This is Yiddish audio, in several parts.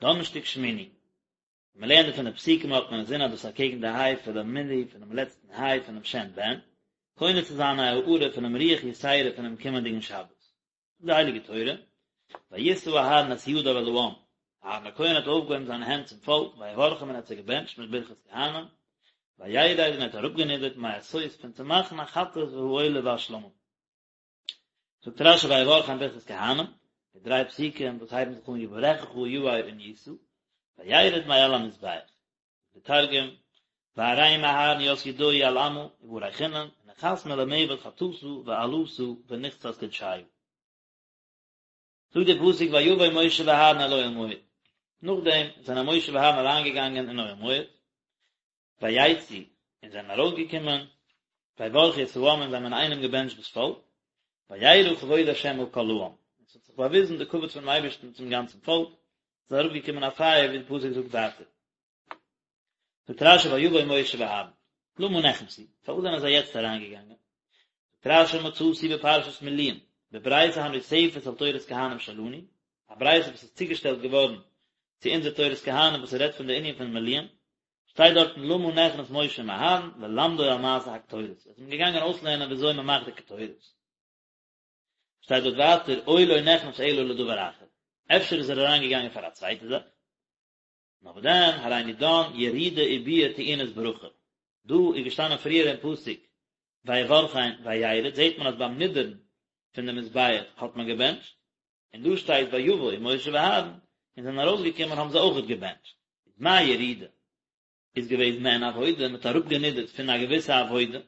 דאנערשטאג שמיני. ווען מען לערנט פון די פסוקים האט מען אינזין אז דאס איז אקעגן די היי פונעם מילוי פונעם לעצטן היי פונעם שם בן, קונה צו זיין א הארה פונעם רוח יתירה פונעם קומענדיגן שבת. זאגט די הייליגע תורה, וישא אהרן את ידיו אל העם, אהרן הכהן האט אויפגעהויבן זיינע הענט צום פאלק, ויברכם און ער האט זיי געבענטשט מיט ברכת כהנים, וירד און ער האט אראפגענידערט מעשות פון צו מאכן החטאת והעולה והשלמים. זאגט רשי ויברכם ברכת כהנים, די דריי פסוקים וואס הייבן זיך אן יברכך יאר און ישא, וירד מעל המזבח. די תרגום, וארים אהרן ית ידוהי על עמא, וברכינון, ונחת מלמעבד חטאתא ועלתא ונכסת קודשיא. זאגט דער פסוק ויבא משה ואהרן אל אוהל מועד, נאכדעם זענען משה ואהרן אריינגעגאנגען אין אוהל מועד, ויצאו, און זענען ארויסגעקומען, ויברכו את העם און זיי האבן אינאיינעם געבענטשט דאס פאלק, וירא כבוד ה' אל כל העם, און עס האט זיך באוויזן די כבוד פונעם אייבערשטן צום גאנצן פאלק, עס איז אראפגעקומען א פייער ווי די פסוק זאגט ווייטער. זאגט רשי ויבא משה ואהרן, למה נכנסו, פארוואס זענען זיי יעצט אריינגעגאנגען? זאגט רשי מצאתי בפרשת מילואים, בברייתא הנוספת על תורת כהנים שלנו, א ברייתא וואס איז צוגעשטעלט געווארן צו אונזער תורת כהנים וואס רעדט פון די ענין פון מילואים, שטייט דארטן למה נכנס משה עם אהרן ללמדו על מעשה הקטורת, ער איז אים געגאנגען אויסלערנען ווי אזוי מען מאכט די קטורת. שטייט דארט ווייטער או לא נכנס אלא לדבר אחר, אפשר איז ער אריין געגאנגען פאר א צווייטע זאך. נאר וואס דען, הריני דן ירידה וביאה טעונות ברכה. דא איז געשטאנען פריער אין פסוק ויברכם וירד, זעט מען אז ביים נידערן פון די מזבח האט מען געבענטשט, און דא שטייט ויבא משה ואהרן, און זענען ארויסגעקומען האבן זיי אויכעט געבענטשט. איז מה ירידה איז געוועזן מעין עבודה, מ'האט אראפגענידערט פון א געוויסע עבודה,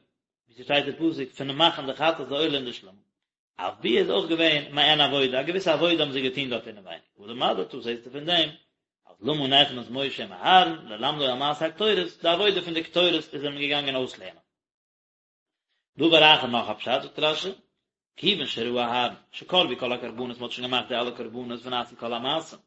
ווי ס'שטייט אין פסוק פונעם מאכן די חטאת די עולה און די שלמים. אף ביאה איז אויך געווען מעין עבודה, א געוויסע עבודה האבן זיי געטון דארט אינעווייניג. הא למדת, זעסטו פון דעם אז למה נכנס משה עם אהרן ללמדו על מעשה הקטורת, די עבודה פון די קטורת איז ער אים געגאנגען אויסלערנען. דבר אחר נאך א פשט זאגט רשי, כיוון שראה אהרן שקרבו כל הקרבנות מען האט שוין געמאכט די אלע קרבנות ונעשו כל המעשים,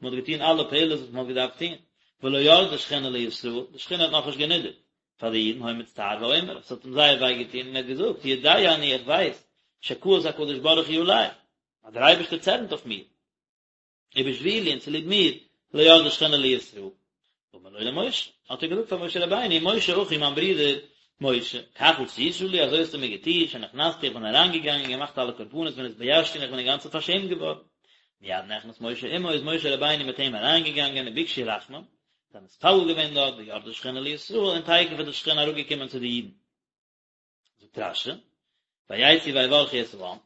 מען האט געטון אלע פעולות וואס מען האט געדארפט טון, ולא ירדה שכינה לישראל, די שכינה האט נאכנישט גענידערט פאר די אידן, היה מצטער ואומר, עס האט אים זייער וויי געטון און ער האט געזאגט, יודע אני איך ווייס, שכעס הקדוש ברוך הוא עלי, אז דער אייבערשטער צערנט אויף מיר. ובשבילי און צוליב מיר, לא ירדה שכינה לישראל. אמר לו למשה, האט ער געזאגט פאר משה רבינו, משה אחי מיין ברודער משה, כך עשית לי, אזוי האסטו מיר געטון, שנכנסתי איך בין אריינגעגאנגען און געמאכט אלע קרבנות ונתביישתי און איך בין אינגאנצן פארשעמט געווארן. מיד נכנס משה עמו, איז משה רבינו מיט אים אריינגעגאנגען וביקשו רחמים, זיי האבן מתפלל געווען דארט, וירדה שכינה לישראל, און תיכף איז די שכינה אראפגעקומען צו די אידן. זאגט רשי, ויצאו ויברכו את העם,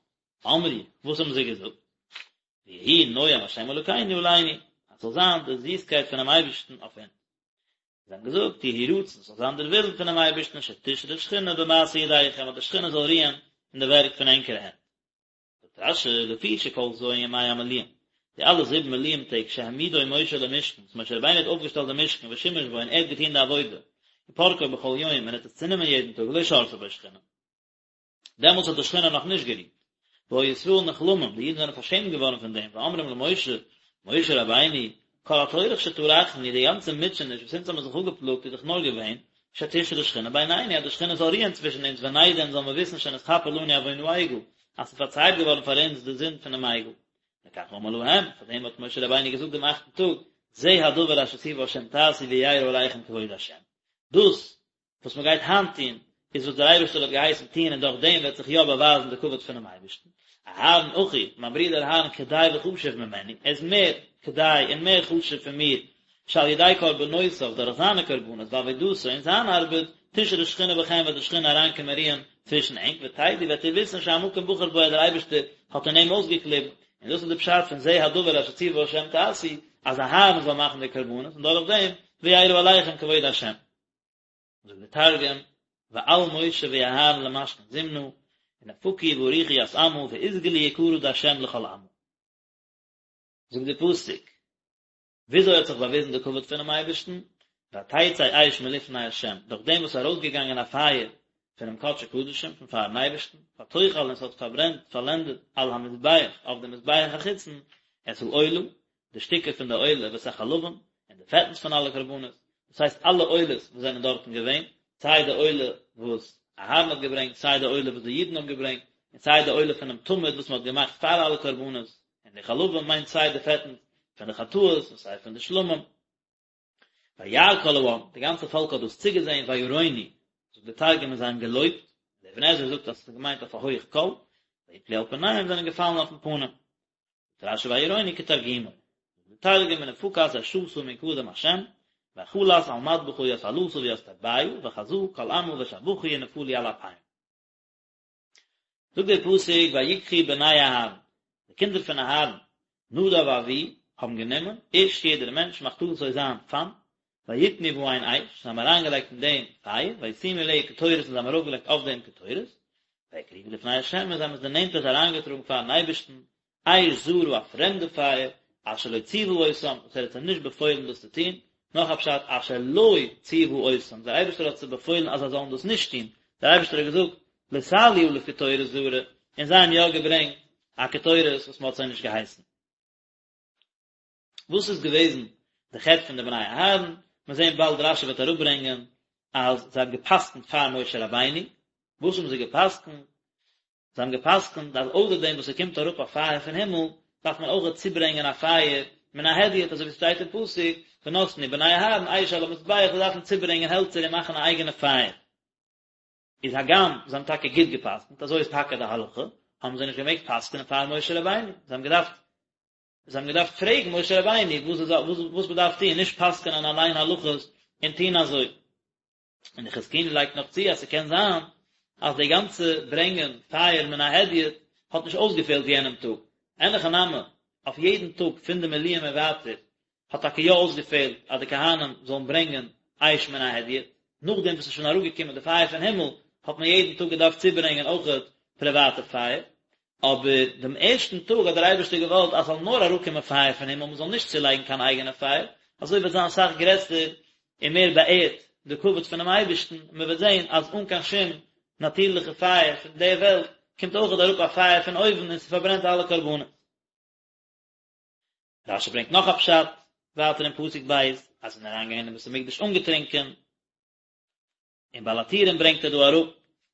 אמרו, וואס האבן זיי געזאגט? ויהי נועם השם אלוקינו עלינו, אז ס'זאל זיין די זיסקייט פונעם אייבערשטן אויף אונז. זיי האבן געזאגט, יהי רצון, ס'זאל זיין דער ווילן פונעם אייבערשטן, שתשרה שכינה במעשה ידיכם, אז די שכינה זאל רוען אין די ווערק פון ענקערע הענט. זאגט רשי, לפי שכל ז' ימי המילואים, די אלע זיבן מילואים טעג שהעמידו משה למשכן, וואס משה רבינו האט אויפגעשטעלט די משכן ושימש בו און ער האט געטון די עבודה, ופרקו בכל יום און ער האט עס צענומען יעדן טאג, לא שרתה בו שכינה. דעמאלטס האט די שכינה נאך נישט גערוהט. והיו ישראל נכלמים, די אידן זענען פארשעמט געווארן פון דעם, ואומרים למשה, משה רבינו, כל הטורח שטרחנו, די גאנצע מוטשעניש וואס אונז האבן זיך אפגעפלאגט איז דאך נאר געווען, שתשרה שכינה בינינו, אז די שכינה זאל רוען צווישן אונז, ונדע און זאל מיר וויסן שנתכפר לנו עוון העגל, אז ס'איז פארצייט געווארן פאר אונז די זינד פונעם עגל. לכך אמר להם, פאר דעם האט משה רבינו געזאגט דעם אכטן טאג, זה הדבר אשר ציווה השם תעשו וירא עליכם כבוד השם. דאס וואס מען גייט היינט טון, איז וואס דער אייבערשטער האט געהייסן טון און דורך דעם וועט זיך יא באווייזן די כבוד פונעם אייבערשטן. אהרן אחי, מיין ברודער אהרן כדאי וחשוב ממני, ער איז מער כדאי און מער חשוב פון מיר, שעל ידי קרבנותיו, דורך זיינע קרבנות, ועבודתו, און זיין ארבעט, תשרה שכינה בכם וועט די שכינה אריינקומען רוען צווישן ענק, ותדעו וועט איר וויסן שהמקום בחר בו אז דער אייבערשטער האט אין אים אויסגעקליבן, און דאס איז די פשט פון זה הדבר אשר ציווה השם תעשו, אז אהרן זאל מאכן די קרבנות, און דורך דעם וירא עליכם כבוד השם. זאגט דער תרגום, ועל משה ואהרן למשכן זמנא, ונפקו ובריכו ית עמא, ואתגלי יקרא דהשם לכל עמא. זאגט דער פסוק, וויאזוי האט זיך באוויזן די כבוד פונעם אייבערשטן? ותצא אש מלפני השם, דורך דעם וואס איז ארויסגעגאנגען א פייער פונעם קדשי קדשים, פון פארן אייבערשטן, ותאכל און עס האט פארברענט, פארלענדעט, על המזבח, אויף דעם מזבח החיצון, את העולה, די שטיקער פון די עולה ואת החלבים, און די פעטנס פון אלע קרבנות, דאס הייסט אלע עולות וואס זענען דארטן געווען, סיי די עולה וואס אהרן האט געברענגט, סיי די עולה וואס די אידן האבן געברענגט, און סיי די עולה פונעם תמיד וואס מען האט געמאכט פאר אלע קרבנות, און די חלבים מיינט סיי די פעטנס. פון די חטאות און סיי פון די שלמים. וירא כל העם, די גאנצע פאלק האט דאס צוגעזען, וירונו, זאגט דער תרגום און זיי האבן געלויבט, דער אבן עזרא זאגט אז עס איז געמיינט אויף א הויך קול, ויפלו על פניהם זענען געפאלן אויפן פנים. זאגט רשי וירונו כתרגומו, זאגט דער תרגום ונפקת אשתא מן קדם השם, ואכלת על מדבחא ית עלתא וית טביא, וחזא כל עמא ושבחו ונפלו על אפיהון. זאגט דער פסוק ויקחו בני אהרן, די קינדער פון אהרן, נדב ואביהוא, האבן גענומען, איש יעדער מענטש מחתתו זיין פאן, ויתנו בהן אש, זיי האבן אריינגעלייגט אין דעם פייער, וישימו עליה קטורת און זיי האבן ארויפגעלייגט אויף דעם קטורת, ויקריבו לפני ה' און זיי האבן עס דערנענטערט אריינגעטראגן פארן אייבערשטן, אש זרה א פרעמדע פייער, אשר לא ציוה אותם, וואס ער האט זיי נישט באפוילן דאס צו טון, נאך א פשט, אשר לא ציוה אותם, דער אייבערשטער האט זיי באפוילן אז זיי זאלן דאס נישט טון, דער אייבערשטער האט געזאגט, לא תעלו עליו קטורת זרה, און זיי האבן יא געברענגט א קטורת וואס מען האט זיי נישט געהייסן. וואס איז געוועזן די חטא פון די בני אהרן? מיר זעען באלד רשי וועט אראפברענגען אז זיי האבן גע'פסק'נט פאר משה רבינו, וואס האבן זיי גע'פסק'נט? זיי האבן גע'פסק'נט אז אויסער דעם וואס ס'קומט אראפ א פייער פון הימל, דארף מען אויך צוברענגען א פייער מן ההדיוט, אזוי ווי ס'שטייט אין פסוק, ונתנו בני אהרן אש על המזבח, זיי דארפן צוברענגען העלצער און מאכן א אייגענע פייער. איז הגם זיי האבן טאקע גוט גע'פסק'נט, אזוי איז טאקע די הלכה, האבן זיי נישט געמעגט פסק'נען פאר משה רבינו, זיי האבן געדארפט זיי האבן געדארפט פרעגן משה רבינו וואס וואס מ'דארף טון, נישט פסק'נען אליין הלכות און טון אזוי. און די חזקוני לייגט נאך צו אז ס'קען זיין אז די גאנצע ברענגען פייער מן ההדיוט האט נישט אויסגעפעלט יענעם טאג, אין הכי נמי, אויף יעדן טאג פון די מילואים און ווייטער האט טאקע יא אויסגעפעלט אז די כהנים זאלן ברענגען אש מן ההדיוט, נאכדעם וואס ס'איז שוין אראפגעקומען די פייער פון הימל האט מען יעדן טאג געדארפט צוברענגען אויכעט פריוואטע פייער, אבער דעם ערשטן טאג האט דער אייבערשטער געוואלט אז ס'זאל נאר אראפקומען פייער פון הימל, מ'זאל נישט צולייגן קיין אייגענע פייער, אזוי וועט זיין אסאך גרעסער און מער באערט די כבוד פונעם אייבערשטן, און מ'וועט זען אז אן קיין שום נאטירליכע פייער פון דער וועלט, קומט אויכעט אראפ א פייער פון אויבן און ס'פארברענט אלע קרבנות. רשי ברענגט נאך א פשט ווייטער אין פסוק ב', אז זיי זענען אריינגעגאנגען אין בית המקדש אנגעטרינקען, און בעל הטורים ברענגט ער דא אראפ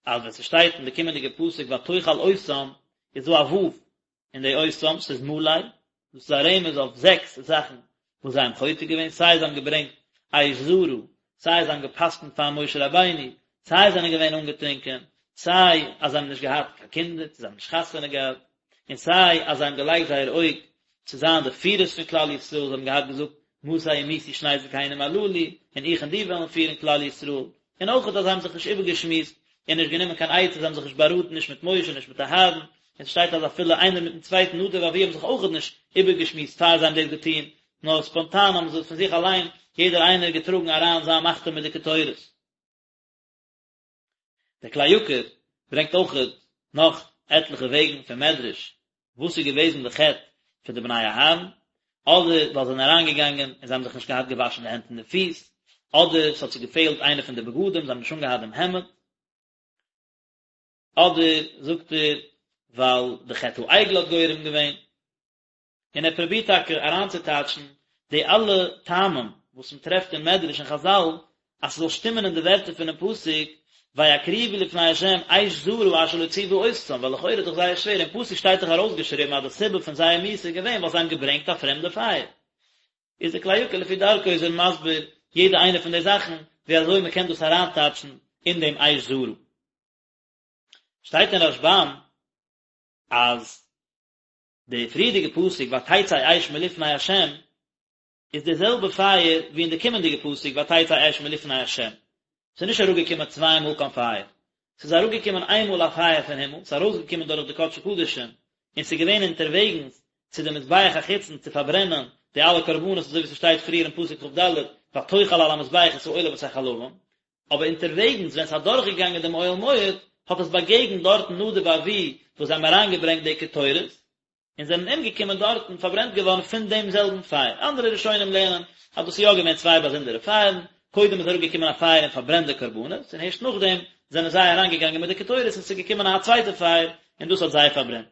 אז ווען ס'שטייט אין די קומענדיגע פסוק ותאכל אותם איז דא א ו' אין די אותם, ס'איז מלא, דאס איז א רמז אויף זעקס זאכן וואס זיי האבן חוטא געווען, סיי זיי האבן געברענגט אש זרה, סיי זיי האבן גע'פסק'נט פאר משה רבינו, סיי זיי זענען געווען אנגעטרינקען, סיי אז זיי האבן נישט געהאט קיין קינדער, צו זיי האבן נישט חתונה געהאט, און סיי אז זיי האבן געלייגט זייער אויג צו זיין די פירערס פון כלל ישראל, זיי האבן געהאט געזאגט מתי ימותו שני זקנים הללו, און איך און דו וועלן פירן כלל ישראל, און אויכעט אז זיי האבן זיך נישט איבערגעשמועסט און נישט גענומען קיין עצה, זיי האבן זיך נישט באראטן נישט מיט משה נישט מיט אהרן, און ס'שטייט אז אפילו איינער מיטן צווייטן נדב ואביהוא האבן זיך אויכעט נישט איבערגעשמועסט פאר זיי האבן דאס געטון, נאר ספאנטאן האבן זיי פון זיך אליין יעדער איינער געטראגן אריין זיין מחתה מיט די קטורת. דער כלי יקר ברענגט אויכעט נאך עטליכע וועגן פון מדרש וואס איז געוועזן די חטא פון די בני אהרן, אדער ווייל זיי זענען אריינגעגאנגען און זיי האבן זיך נישט געהאט געוואשן די הענט און די פיס, אדער ס'האט זיי געפעלט איינע פון די בגדים, זיי האבן נישט אנגעהאט דעם העמד, אדער זאגט ער ווייל די חטא העגל האט גורם געווען. און ער פרובירט טאקע אריינצוטייטשן די אלע טעמים וואס מען טרעפט אין מדרש און חזל אז ס'זאל שטימען אין די ווערטער פונעם פסוק ויקריבו לפני ה' אש זרה אשר לא ציוה אותם, ווייל לכאורה איז דאך זייער שווער, אין פסוק שטייט דאך ארויסגעשריבן אז די סיבה פון זייער מיתה איז געווען ווייל זיי האבן געברענגט א פרעמדע פייער. איז דער כלי יקר לפי דרכו איז ער מסביר יעדע איינע פון די זאכן ווי אזוי מען קען דאס אריינטייטשן אין דעם אש זרה. שטייט אין רשבם אז די פריערדיגע פסוק ותצא אש מלפני ה' איז די זעלבע פייער ווי אין די קומענדיגע פסוק ותצא אש מלפני ה'. ס'איז נישט אראפגעקומען צוויי מאל קיין פייער. ס'איז אראפגעקומען איין מאל א פייער פון הימל, ס'איז ארויסגעקומען דורך די קדשי קדשים, און ס'איז געווען אונטערוועגנס צו די מזבח החיצון צו פארברענען די אלע קרבנות אזוי ווי ס'שטייט פריער אין פסוק כ"ד ותאכל על המזבח את העולה ואת החלבים, אבער אונטערוועגנס ווען ס'האט אדורכגעגאנגען דעם אוהל מועד, האט עס באגעגנט דארטן נדב ואביהוא וואס זיי האבן אריינגעברענגט די קטורת, און זענען אומגעקומען דארטן, פארברענט געווארן פון דעם זעלבן פייער. אנדערע ראשונים לערנען אז דאס איז יא געווען צוויי באזונדערע פייערן, קודם איז אראפגעקומען א פייער און פארברענט די קרבנות, און הערשט נאכדעם זענען זיי אריינגעגאנגען מיט די קטורת און ס'איז געקומען א צווייטע פייער און דאס האט זיי פארברענט.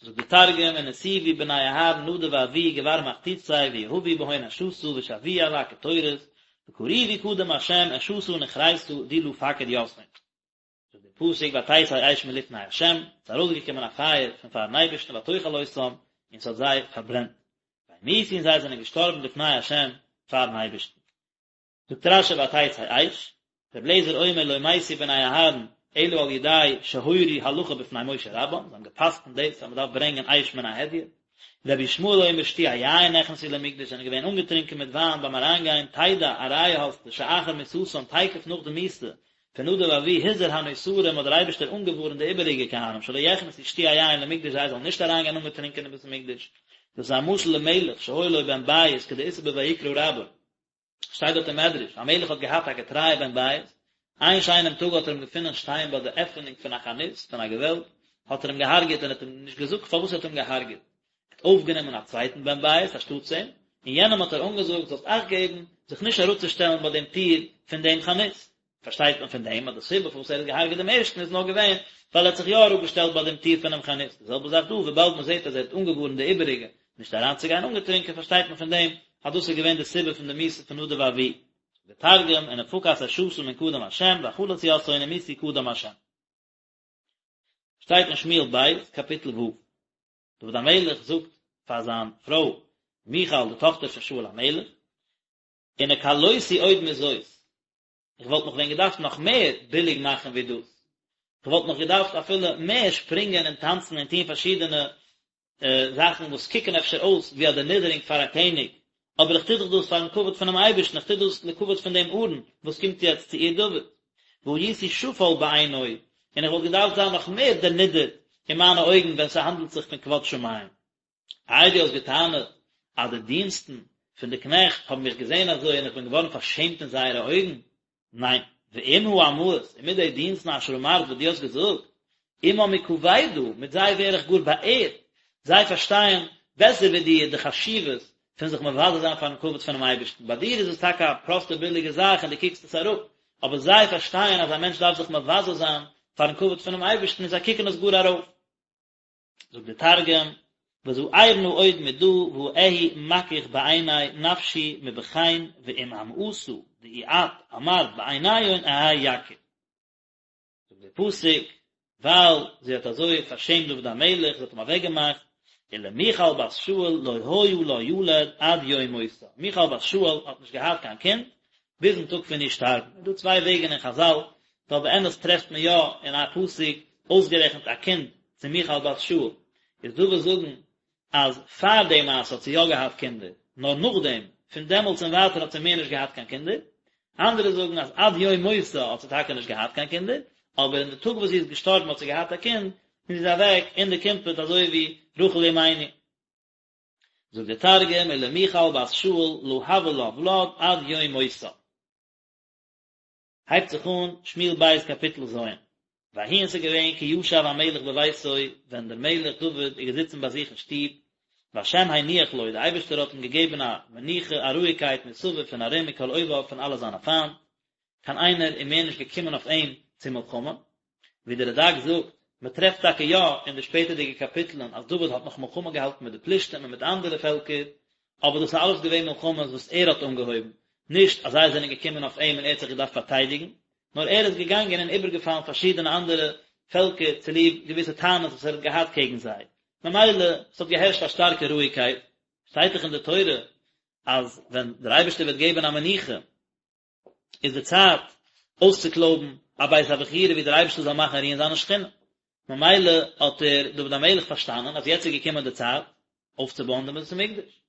זאגט די תרגום, ונסיבו בני אהרן נדב ואביהוא גבר מחתותיה ויהבו בהון אשתא ושוויאו על הקטורת, וקריבו קדם השם אשתא נכרתא די לא פקיד יתהון. זאגט דער פסוק ותצא אש מלפני השם, ס'איז ארויסגעקומען א פייער פון פארן אייבערשטן ותאכל אותם, און ס'האט זיי פארברענט. וימותו און זיי זענען געשטארבן לפני השם פארן אייבערשטן. זאגט רשי ותצא אש, רבי אליעזר אומר לא מתו בני אהרן אלא על ידי שהורו הלכה בפני משה רבם, זיי האבן גע'פסק'נט דאס אז מען דארף ברענגען אש מן ההדיוט, רבי ישמעאל אומר שתויי יין נכנסו למקדש זענען געווען אנגעטרינקען מיט וויין ביים אריינגיין, תדע א ראיה האסטו שאחר מיתתם תיכף נאך די מיתה פון נדב ואביהוא הזהיר הנותרים האט דער אייבערשטער אנגעווארנט די איבעריגע כהנים שלא יכנסו שתויי יין למקדש זיי זאלן נישט אריינגיין אנגעטרינקען אין בית המקדש, דאס איז א משל למלך שהיה לו בן בית כדאיתא בויקרא רבה. שטייט דארט אין מדרש, א מלך האט געהאט א געטרייע בן בית, איין שיינעם טאג האט ער אים געפונען שטיין ביי די עפענונג פון א חנות, פון א געוועלב, האט ער אים געהארגעט און האט אים נישט געזאגט פארוואס ער האט אים געהארגעט. ער האט אויפגענומען א צווייטן בן בית אנשטאטס אים, און יענעם האט ער אנגעזאגט, זאלסט אכט געבן זיך נישט אראפצושטעלן ביי דעם טיר פון דעם חנות. פארשטייט מען פון דעם אז די סיבה פארוואס ער האט געהארגעט דעם ערשטן איז נאר געווען ווייל ער האט זיך יא אראפגעשטעלט ביי דעם טיר פונעם חנות, די זעלבע זאך דא, וויבאלד מען זעט אז ער האט אנגעווארנט די איבעריגע נישט אריינצוגיין אנגעטרינקען פארשטייט מען פון דעם אז דאס איז געווען די סיבה פון די מיתה פון נדב ואביהוא. דער תרגום, ונפקת אשתא מן קדם השם ואכלת יתהון ומתו קדם השם. שטייט אין שמואל ב', קאפיטל ו'. דוד המלך זאגט פאר זיין פרוי מיכל די טאכטער פון שאול המלך, ונקלותי עוד מזאת, איך וואלט מיך ווען געדארפט נאך מער ביליג מאכן ווי דאס, איך וואלט נאך געדארפט אפילו מער שפרינגען און טאנצן און טון פארשידענע זאכן וואס קוקן אפשר אויס ווי א דערנידערונג פאר א קעניג, אבער איך טו דאך דאס פארן כבוד פונעם אייבערשטן, איך טו דאס לכבוד פון דעם ארון וואס קומט יעצט צו עיר דוד. והייתי שפל בעיני, און איך וואלט געדארפט זיין נאך מער דערנידערט אין מיינע אויגן ווען ס'האנדלט זיך פון כבוד שמים. איי דו האסט געטענה'ט אז די דינסטן פון די קנעכט האבן מיך געזען אזוי און איך בין געווארן פארשעמט אין זייערע אויגן? ניין, ועם האמהות, און מיט די דינסטן אשר אמרת וואס דו האסט געזאגט, עמם אכבדה, מיט זיי ווער איך גאר באערט, זיי פארשטייען בעסער ווי דיר די חשיבות פון זיך מבזה זיין פארן כבוד פונעם אייבערשטן, ביי דיר איז עס טאקע א פראסטע ביליגע זאך און דו קוקסט עס אראפ, אבער זיי פארשטייען אז א מענטש דארף זיך מבזה זיין פארן כבוד פונעם אייבערשטן און זיי קוקן עס גאר ארויף. זאגט דער תרגום, וזעירנא עוד מדא ואהי מכיך בעיני נפשי מבכן ועם אמהתא דאי את אמרת בעיניהון אהי יקיר. זאגט דער פסוק, ווייל זי האט אזוי פארשעמט דוד המלך, זי האט אים אוועקגעמאכט, ולמיכל בת שאול לא היה לה ילד עד יום מותה, מיכל בת שאול האט נישט געהאט קיין קינד ביזן טאג פון איר שטארבן. איז דא צוויי וועגן אין חזל, ווייל באמת טרעפט מען יא אין א פסוק אויסגערעכנט א קינד צו מיכל בת שאול, איז דא וואס זאגן אז פאר די מעשה האט זי יא געהאט קינדער, נאר נאכדעם, פון דעמאלטס און ווייטער האט זי מער נישט געהאט קיין קינדער, אנדערע זאגן אז עד יום מותה האט זי טאקע נישט געהאט קיין קינדער, אבער אין די טאג וואס זי איז געשטארבן האט זי געהאט א קינד, און זי איז אוועק אין די קימפעט אזוי ווי רחל אמנו. זאגט דער תרגום ולמיכל בת שאול לא הוה לה ולד עד יום מותה. הייבט זיך אן שמואל ב' קאפיטל ז', ויהי און ס'איז געווען כי ישב המלך בביתו, ווען דער מלך דוד איז געזיצן ביי זיך אין שטוב, והשם הניח לו, דער אייבערשטער האט אים געגעבן א מנוחה, א רואיגקייט מסביב פון ארום מכל אויביו פון אלע זיינע פיינט, קיין איינער איז מער נישט געקומען אויף אים צו מלחמה, ווי דער רד"ק זאגט, מען טרעפט טאקע יא אין די שפעטערדיגע קאפיטלען אז דוד האט נאך מלחמה געהאלטן מיט די פלישתים און מיט אנדערע פעלקער, אבער דאס איז אלעס געווען מלחמות וואס ער האט אנגעהויבן, נישט אז זיי זענען געקומען אויף אים און ער האט זיך געדארפט פארטיידיגן, נאר ער איז געגאנגען און איבערגעפאלן פארשידענע אנדערע פעלקער צוליב געוויסע טענות וואס ער האט געהאט קעגן זיי. ממילא, עס האט געהערשט א שטארקע רואיגקייט. שטייט דאך אין די תורה אז ווען דער אייבערשטער וועט געבן א מנוחה, איז די צייט אויסצוקלויבן א בית הבחירה ווי דער אייבערשטער זאל מאכן רוען זיינע שכינה. ממילא האט ער, דוד המלך, פארשטאנען אז יעצט איז געקומען די צייט אויפצובויען דעם בית המקדש.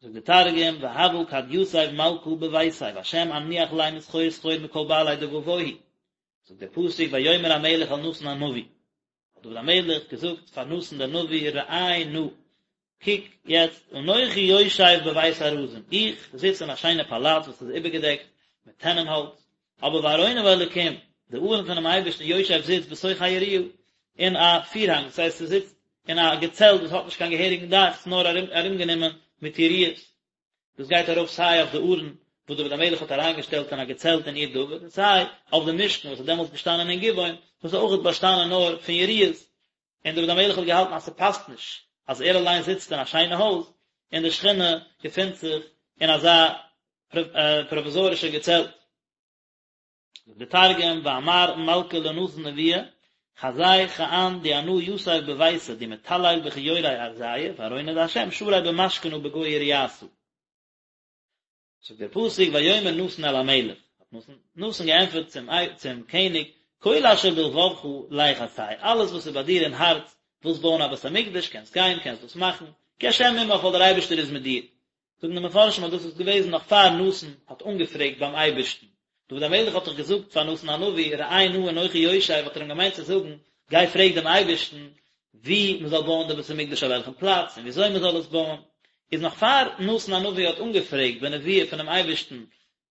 זאגט דער תרגום, והוה כד יתיב מלכא בביתיה והשם אניח ליה מסחור סחור מכל בעלי דבבוהי. זאגט דער פסוק ויאמר המלך אל נתן הנביא, האט דוד המלך געזאגט פאר נתן דער נביא, ראה נא, קוק יעצט, אנכי יושב בבית ארזים, איך זיץ אין א שיינע פאלאץ וואס איז איבערגעדעקט מיט טענען האלץ, אבער וארון האלוקים, די ארון פונעם אייבערשטן יושב זיצט בתוך היריעה, אין א פירהאנג, דאס הייסט ס'זיצט אין א געצעלט וואס האט נישט קיין געהעריגן דאך, ס'איז נאר ארומגענומען מיט יריעות. דאס גייט ארויף סיי אויף די ארון וואס דוד המלך האט אריינגעשטעלט אין א געצעלט אין עיר דוד, און סיי אויף די משכן וואס איז דעמאלטס געשטאנען אין גבעון, וואס איז אויך באשטאנען נאר פון יריעות, און דוד המלך האט געהאלטן אז ס'פאסט נישט אז ער אליין זיצט אין א שיינע הויז, און די שכינה געפינט זיך אין אזא פראוויזארישע געצעלט. זאגט דער תרגום, ואמר מלכא לנתן נביא. חזי כען די אנא יתיב בביתא די מטלל בכיורי ארזיא וארונא דהשם שרי במשכנא בגו יריעתא. זאגט דער פסוק ויאמר נתן אל המלך, האט נתן געענטפערט צום צום קעניג, כל אשר בלבבך לך עשה, אלעס וואס איז ביי דיר אין הארץ, ווילסט בויען א בית המקדש, קענסט גיין, קענסט דאס מאכן, כי השם עמך ווייל דער אייבערשטער איז מיט דיר. זאגן די מפרשים אז דאס איז געוועזן נאך פאר נתן האט אנגעפרעגט ביים אייבערשטן. דוד המלך האט דאך געזאגט פאר נתן הנביא, ראה נא אנכי יושב, האט ער אים געמיינט צו זאגן, גיי פרעג דעם אייבערשטן וואו מען זאל בויען די בית המקדש אויף וועלכן פלאץ און ווי אזוי מען זאל עס בויען, איז נאך פאר נתן הנביא האט אנגעפרעגט בנבואה פונעם אייבערשטן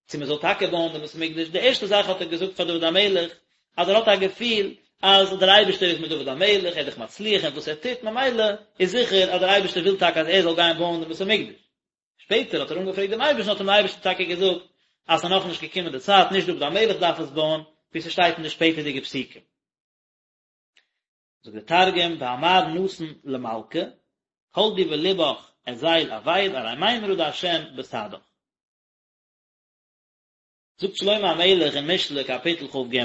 צו מען זאל טאקע בויען דעם בית המקדש, די ערשטע זאך האט ער געזאגט פאר דוד המלך אז ער האט א געפיל אז דער אייבערשטער איז מיט דוד המלך, ער איז דאך מצליח אין וואס ער טוט, ממילא איז זיכער אז דער אייבערשטער וויל טאקע אז ער זאל גיין בויען דעם בית המקדש. שפעטער האט ער אנגעפרעגט דעם אייבערשטן האט אים דער אייבערשטער טאקע געזאגט אז ס'איז נאכנישט געקומען די צייט, נישט דוד המלך דארף עס בויען, ווי ס'שטייט אין די שפעטערדיגע פסוקים. זאגט דער תרגום ואמר נתן למלכא, כל די בלבך אזיל עביד ארי מימרא דהשם בסעדך. זאגט שלמה המלך אין משלי קאפיטל כ"ג,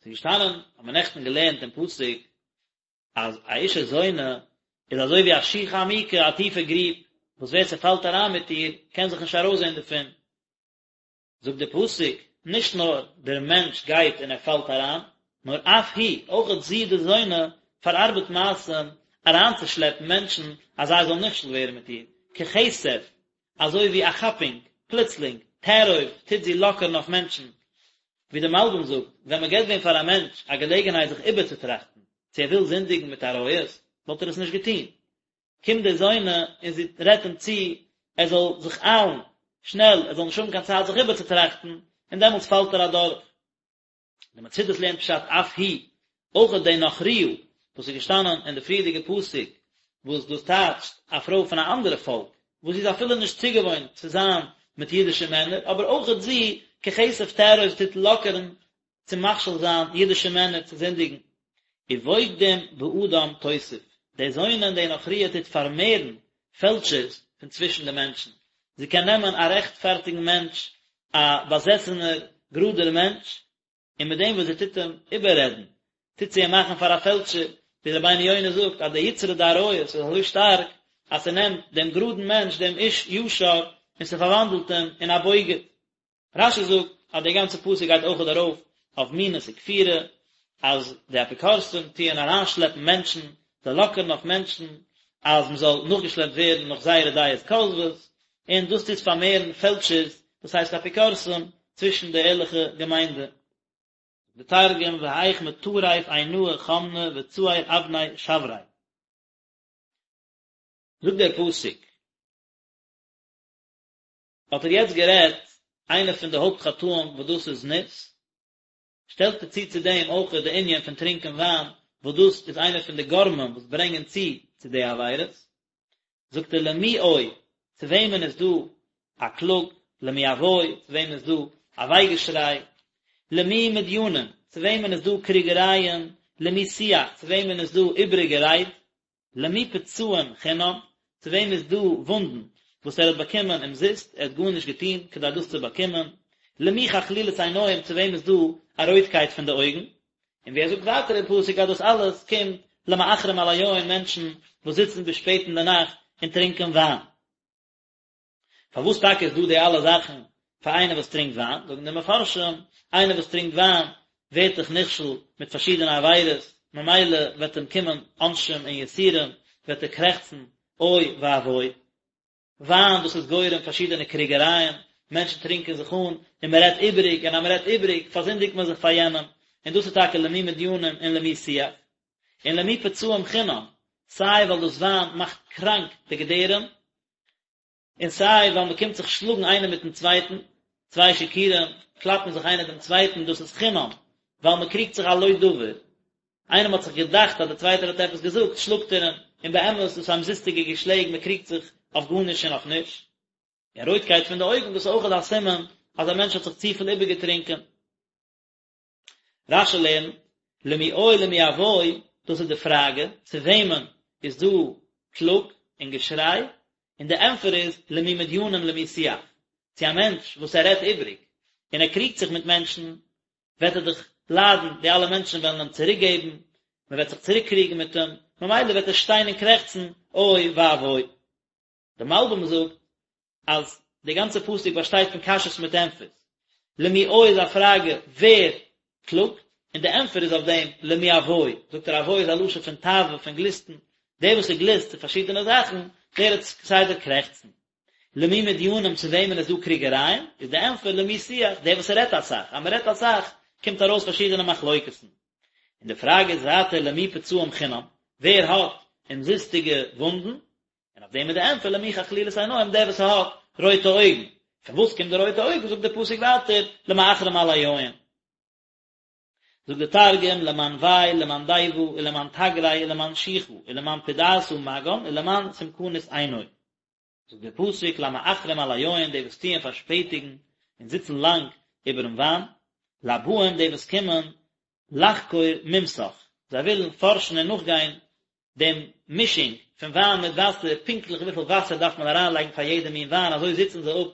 ס'איז געשטאנען, האט מען נעכטן געלערנט אין פסוק, אז א אשה זונה איז אזוי ווי א שוחה עמוקה, א טיפע גריב, וואס ווער ס'פאלט אריין מיט איר, קען זיך נישט ארויסזען דערפון. זאגט דער פסוק, נישט נאר דער מענטש גייט און ער פאלט אריין, נאר אף היא, אויכעט זי די זונה, פארארבעט מעשים אריינצושלעפן מענטשן אז זיי זאלן נכשל ווערן מיט איר, ככתף, אזוי ווי א כאפונג, פלוצלינג, תארוב, טוט זי לאקערן אויף מענטשן. ווי דער מלבי"ם זאגט, ווען מען געבט ווען פאר א מענטש א געלעגנהייט זיך איבערצוטראכטן צו ער וויל זינדיגן מיט עריות, וואלט ער עס נישט געטון. קומט די זונה און זי רעדט אים צו ער זאל זיך איילן, שנעל, ער זאל נישט האבן קיין צייט זיך איבערצוטראכטן, און דעמאלטס פאלט ער אדורך. די מצודות לערנט פשט אף היא, אויכעט די נכריה וואס איז געשטאנען אין די פריערדיגע פסוק, וואס דאס טייטשט א פרוי פון א אנדערע פאלק, וואס זי איז אפילו נישט צוגעוואוינט צו זיין מיט אידישע מענער, אבער אויכעט זי, ככתף תארוב טוט לאקערן צו מכשיל זיין אידישע מענער צו זינדיגן. ובוגדים באדם תוסיף, די זונה און די נכריה טוט פארמערן פעלשערס פון צווישן די מענטשן, זי קען נעמען א רעכטפארטיגן מענטש, א באזעסענער גראדער מענטש, און מיט דעם וואס זי טוט אים איבעררעדן, טוט זי אים מאכן פאר א פעלשער, ווי רבינו יונה זאגט אז די יצרא דעריות איז אזוי שטארק, אז ס'נעמט דעם גראדן מענטש, דעם איש ישר, און ס'פארוואנדלט אים אין א בוגד. רש"י זאגט אז די גאנצע פסוק גייט אויכעט ארויף אויף מינות וכפירה, אז די אפיקורסים טוען אריינשלעפן מענטשן, זיי לאקערן אויף מענטשן אז מען זאל נאכגעשלעפט ווערן נאך זייערע דעות כוזבות, און דאס טוט פארמערן פעלשערס, דאס הייסט אפיקורסים, צווישן די ערליכע געמיינדע. די תרגום והאיך מטריף עינאי חמנא וצעיר אבני שברי. זאגט דער פסוק. האט ער יעצט גערעדט איינע פון די הויפט חטאים וואס דאס איז זנות, שטעלט ער צו צו דעם אויך די ענין פון טרינקען וויין וואס דאס איז איינע פון די גורמים וואס ברענגען צו צו די עבירות, זאגט ער למי אוי, צו וועמען איז דא א קלאג, למי אבוי, צו וועמען איז דא א וויי געשריי, למי מדינים, צו וועמען איז דא קריגערייען, למי שיח, צו וועמען איז דא איבעריגע רייד, למי פצעים חינם, צו וועם איז דא וואונדן וואס ער האט באקומען אומזיסט, ער האט גארנישט געטון כדי דאס צו באקומען, למי חכלילות עיניים, צו וועם איז דא א רויטקייט פון די אויגן, און ווי ער זאגט ווייטער אין פסוק אז דאס אלעס קומט למאחרים על היין, מענטשן וואס זיצן ביז שפעט אין די נאכט און טרינקען וויין. פארוואס טאקע איז דא די אלע זאכן פאר איינער וואס טרינקט וויין? זאגן די מפרשים, איינער וואס טרינקט וויין ווערט דאך נכשל מיט פארשידענע עבירות, ממילא וועט אים קומען עונשים און יסורים, וועט ער קרעכצן אוי ואבוי. וויין דאס איז גורם פארשידענע קריגערייען, מענטשן טרינקען זיך אן און מען רעדט איבעריג, און אז מען רעדט איבעריג פארזינדיגט מען זיך פאר יענעם, און דאס איז טאקע למי מדינים און למי שיח. און למי פצעים חינם, סיי ווייל דאס וויין מאכט קראנק די געדערים, און סיי ווייל מען קומט זיך שלאגן איינער מיטן צווייטן, צוויי שיכורים קלאפן זיך איינער דעם צווייטן, דאס איז חינם, ווייל מען קריגט זיך על לא דבר, איינעם האט זיך געדאכט אז דער צווייטער האט עפעס געזאגט, שלאגט ער אים, און באמת איז דאס א אומזיסטיגע געשלעג, מען קריגט זיך אויף גארנישט און אויף נישט. און רויטקייט פון די אויגן, דאס איז אויכעט א סימן אז א מענטש האט זיך צופיל איבערגעטרינקען. רש"י לערנט, למי אוי למי אבוי, דאס איז די פראגע, צו וועמען איז דא קלאג און געשריי, און די ענטפער איז, למי מדינים למי שיח, צו א מענטש וואס ער רעדט איבריג, און ער קריגט זיך מיט מענטשן, וועט ער דאך ליידן, די אלע מענטשן וועלן אים צוריק געבן, מען וועט זיך צוריק קריגן מיט אים, ממילא וועט ער שטיין און קרעכצן, אוי ואבוי. דער מלבי"ם זאגט אז די גאנצע פסוק באשטייט פון קשיות מיט ענטפערס. למי אוי איז א פראגע ווער קלאגט, און די ענטפער איז אויף דעם למי אבוי, זאגט ער אבוי איז א לשון פון תאווה, פון גליסטן, דער וואס ער גליסט צו פארשידענע זאכן, דער וועט כסדר קרעכצן. למי מדינים צו וועמען איז דא קריגערייען, איז די ענטפער למי שיח, דער וואס רעדט אסאך, אז מען רעדט אסאך קומט ארויס פארשידענע מחלוקת'ן. און די פראגע איז ווייטער למי פצעים חינם, ווער האט אומזיסטיגע וואונדן, און אויף דעם איז די ענטפער למי חכלילות עיניים דער וואס האט רויטע אויגן, פון וואס קומט די רויטע אויגן זאגט דער פסוק ווייטער למאחרים על היין. זאגט דער תרגום למאן וי למאן דיבא ולמאן תגרי ולמאן שיחא ולמאן פדעתא מגן ולמאן סומקנית עינוי. זאגט דער פסוק למאחרים על היין די וואס טוען פארשפעטיגן און זיצן לאנג איבערן וויין, לבאים די וואס קומען לחקור מומסך, זיי ווילן פארשן און נאכגיין דעם מישינג פון וויין מיט וואסער, פונקטליך וויפיל וואסער דארף מען אריינלייגן פאר יעדע מין וויין, אזוי זיצן זיי אפ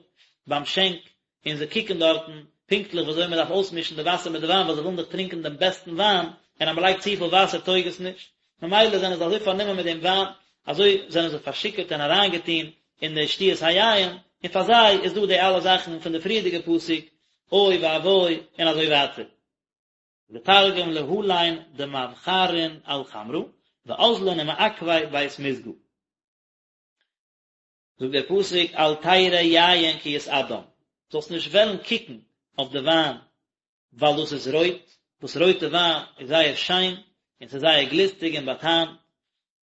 ביים שענק און זיי קוקן דארטן פונקטליך ווי אזוי מען דארף אויסמישן די וואסער מיט די וויין, ווייל זיי ווילן דאך טרינקען דעם בעסטן וויין, און אז מען לייגט צופיל וואסער טויג עס נישט, ממילא זענען זיי אזוי פארנומען מיט דעם וויין, אזוי זענען זיי פארשיכורט און אריינגעטון אין די שתיית היין, און פאר זיי איז דא די אלע זאכן פון די פריערדיגע פסוק, אוי ואבוי, און אזוי ווייטער. די תרגום להלין דמווחרין על חמרא ואזלין ומעכבי בית מסגא. זאגט דער פסוק אל תראה יין כי יתאדם, זאלסט נישט וועלן קוקן אויף די וויין ווייל דאס איז רויט, וואס רויטע וויין איז זייער שיין און ס'איז זייער גליסטיג און באטעמט,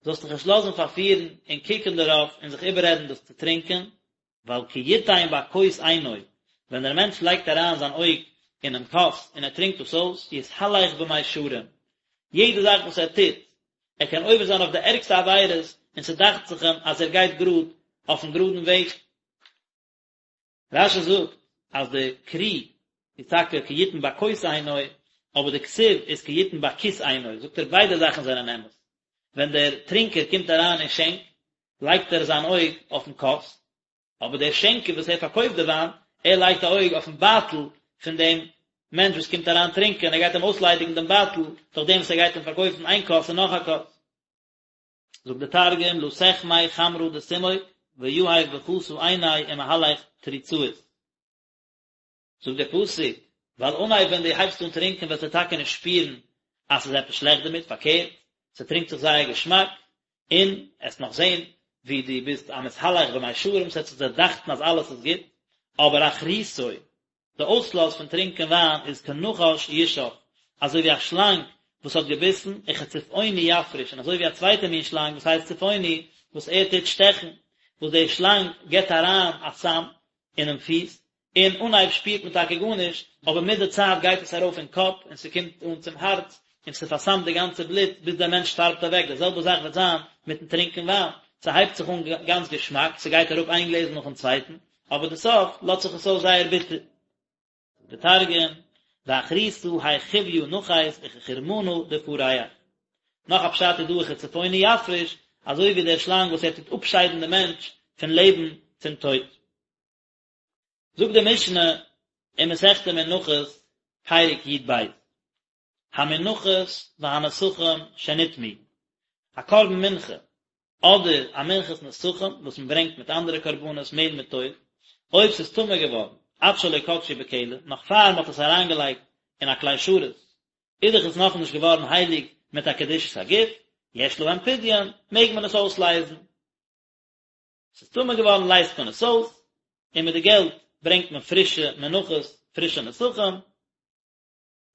זאלסט דיך נישט לאזן פארפירן און קוקן דערויף און זיך איבעררעדן דאס צו טרינקען, ווייל כי יתן בכוס עינו, ווען דער מענטש לייגט אריין זיין אויג אינעם כוס און ער טרינקט דאס אויס, יתהלך במישרים, יעדע זאך וואס ער טוט, ער קען עובר זיין אויף די ערגסטע עבירות און ס'דאכט זיך אים אז ער גייט גראד אויפן גראדן וועג. רש"י זאגט אז די קרי איז טאקע כי יתן בכוס עינו, אבער די כתיב איז כי יתן בכיס עינו, זאגט ער ביידע זאכן זענען אמת, ווען דער טרינקער קומט אריין אין שענק לייגט ער זיין אויג אויפן כוס, אבער דער שענקער וואס ער פארקויפט די וויין, ער לייגט א אויג אויפן בייטל פון דעם מענטש וואס קומט אריין טרינקען, ער גייט אים אויסליידיגן דעם בייטל דורך דעם וואס ער גייט אים פארקויפן איין כוס און נאך א כוס. זאגט דער תרגום לא תחמי חמרא דסומק ויהיב בכסא עיניה ומהלך תריצאית. זאגט דער פסוק, ווייל אנהייב ווען דו הייבסט אן טרינקען וועסטו טאקע נישט שפירן אז ס'איז עפעס שלעכט דערמיט, פארקערט, ס'טרינקט זיך זייער געשמאק, און עסט נאך זען ווי דו ביסט א מתהלך במישרים, ס'וועט זיך דיר דאכטן אז אלעס איז גוט, אבער אחריתו, די אויסלאז פון טרינקען וויין איז כנחש ישך, אזוי ווי א שלאנג וואס האט געביסן, וכצפעוני יפריש, און אזוי ווי א צווייטע מין שלאנג וואס הייסט צפעוני, וואס ער טוט שטעכן, וואס די שלאנג גיבט אריין א סם אינעם פיס, און אנהייב שפירט מען טאקע גארנישט, אבער מיט די צייט גייט עס ארויף אין קאפ און ס'קומט אן צום הארץ, און ס'פארסמט די גאנצע בלוט ביז דער מענטש שטארבט אוועק, די זעלבע זאך וועט זיין מיטן טרינקען וויין, ס'הייבט זיך אן גאנץ געשמאק, ס'גייט אראפ איין גלעזל נאכן צווייטן, אבער די סוף לאזט זיך עס אויס זייער ביטער. די תרגום, ואחריתא האי חויא נחית וכחורמנא דפריח. נאך א פשט איז דא וכצפעוני יפריש, אזוי ווי דער שלאנג וואס ער טוט אפשיידן די מענטש פון לעבן צום טויט. זאגט די משנה אין מסכת מנחות פרק י"ב, המנחות והנסכים שנטמאו, א קרבן מנחה אדער א מנחת נסכים וואס מען ברענגט מיט אנדערע קרבנות מעל מיט אויל, אויב ס'איז טמא געווארן עד שלא קדשו בכלי, נאך פאר מען האט עס אריינגעלייגט אין א כלי שרת, איז דאך עס נאכנישט געווארן הייליג מיט א קדושת הגוף, יש להם פדיון, מעג מען עס אויסלייזן. ס'איז טמא געווארן לייזט מען עס אויס, און מיט די געלט ברענגט מען פרישע מנחות, פרישע נסכים.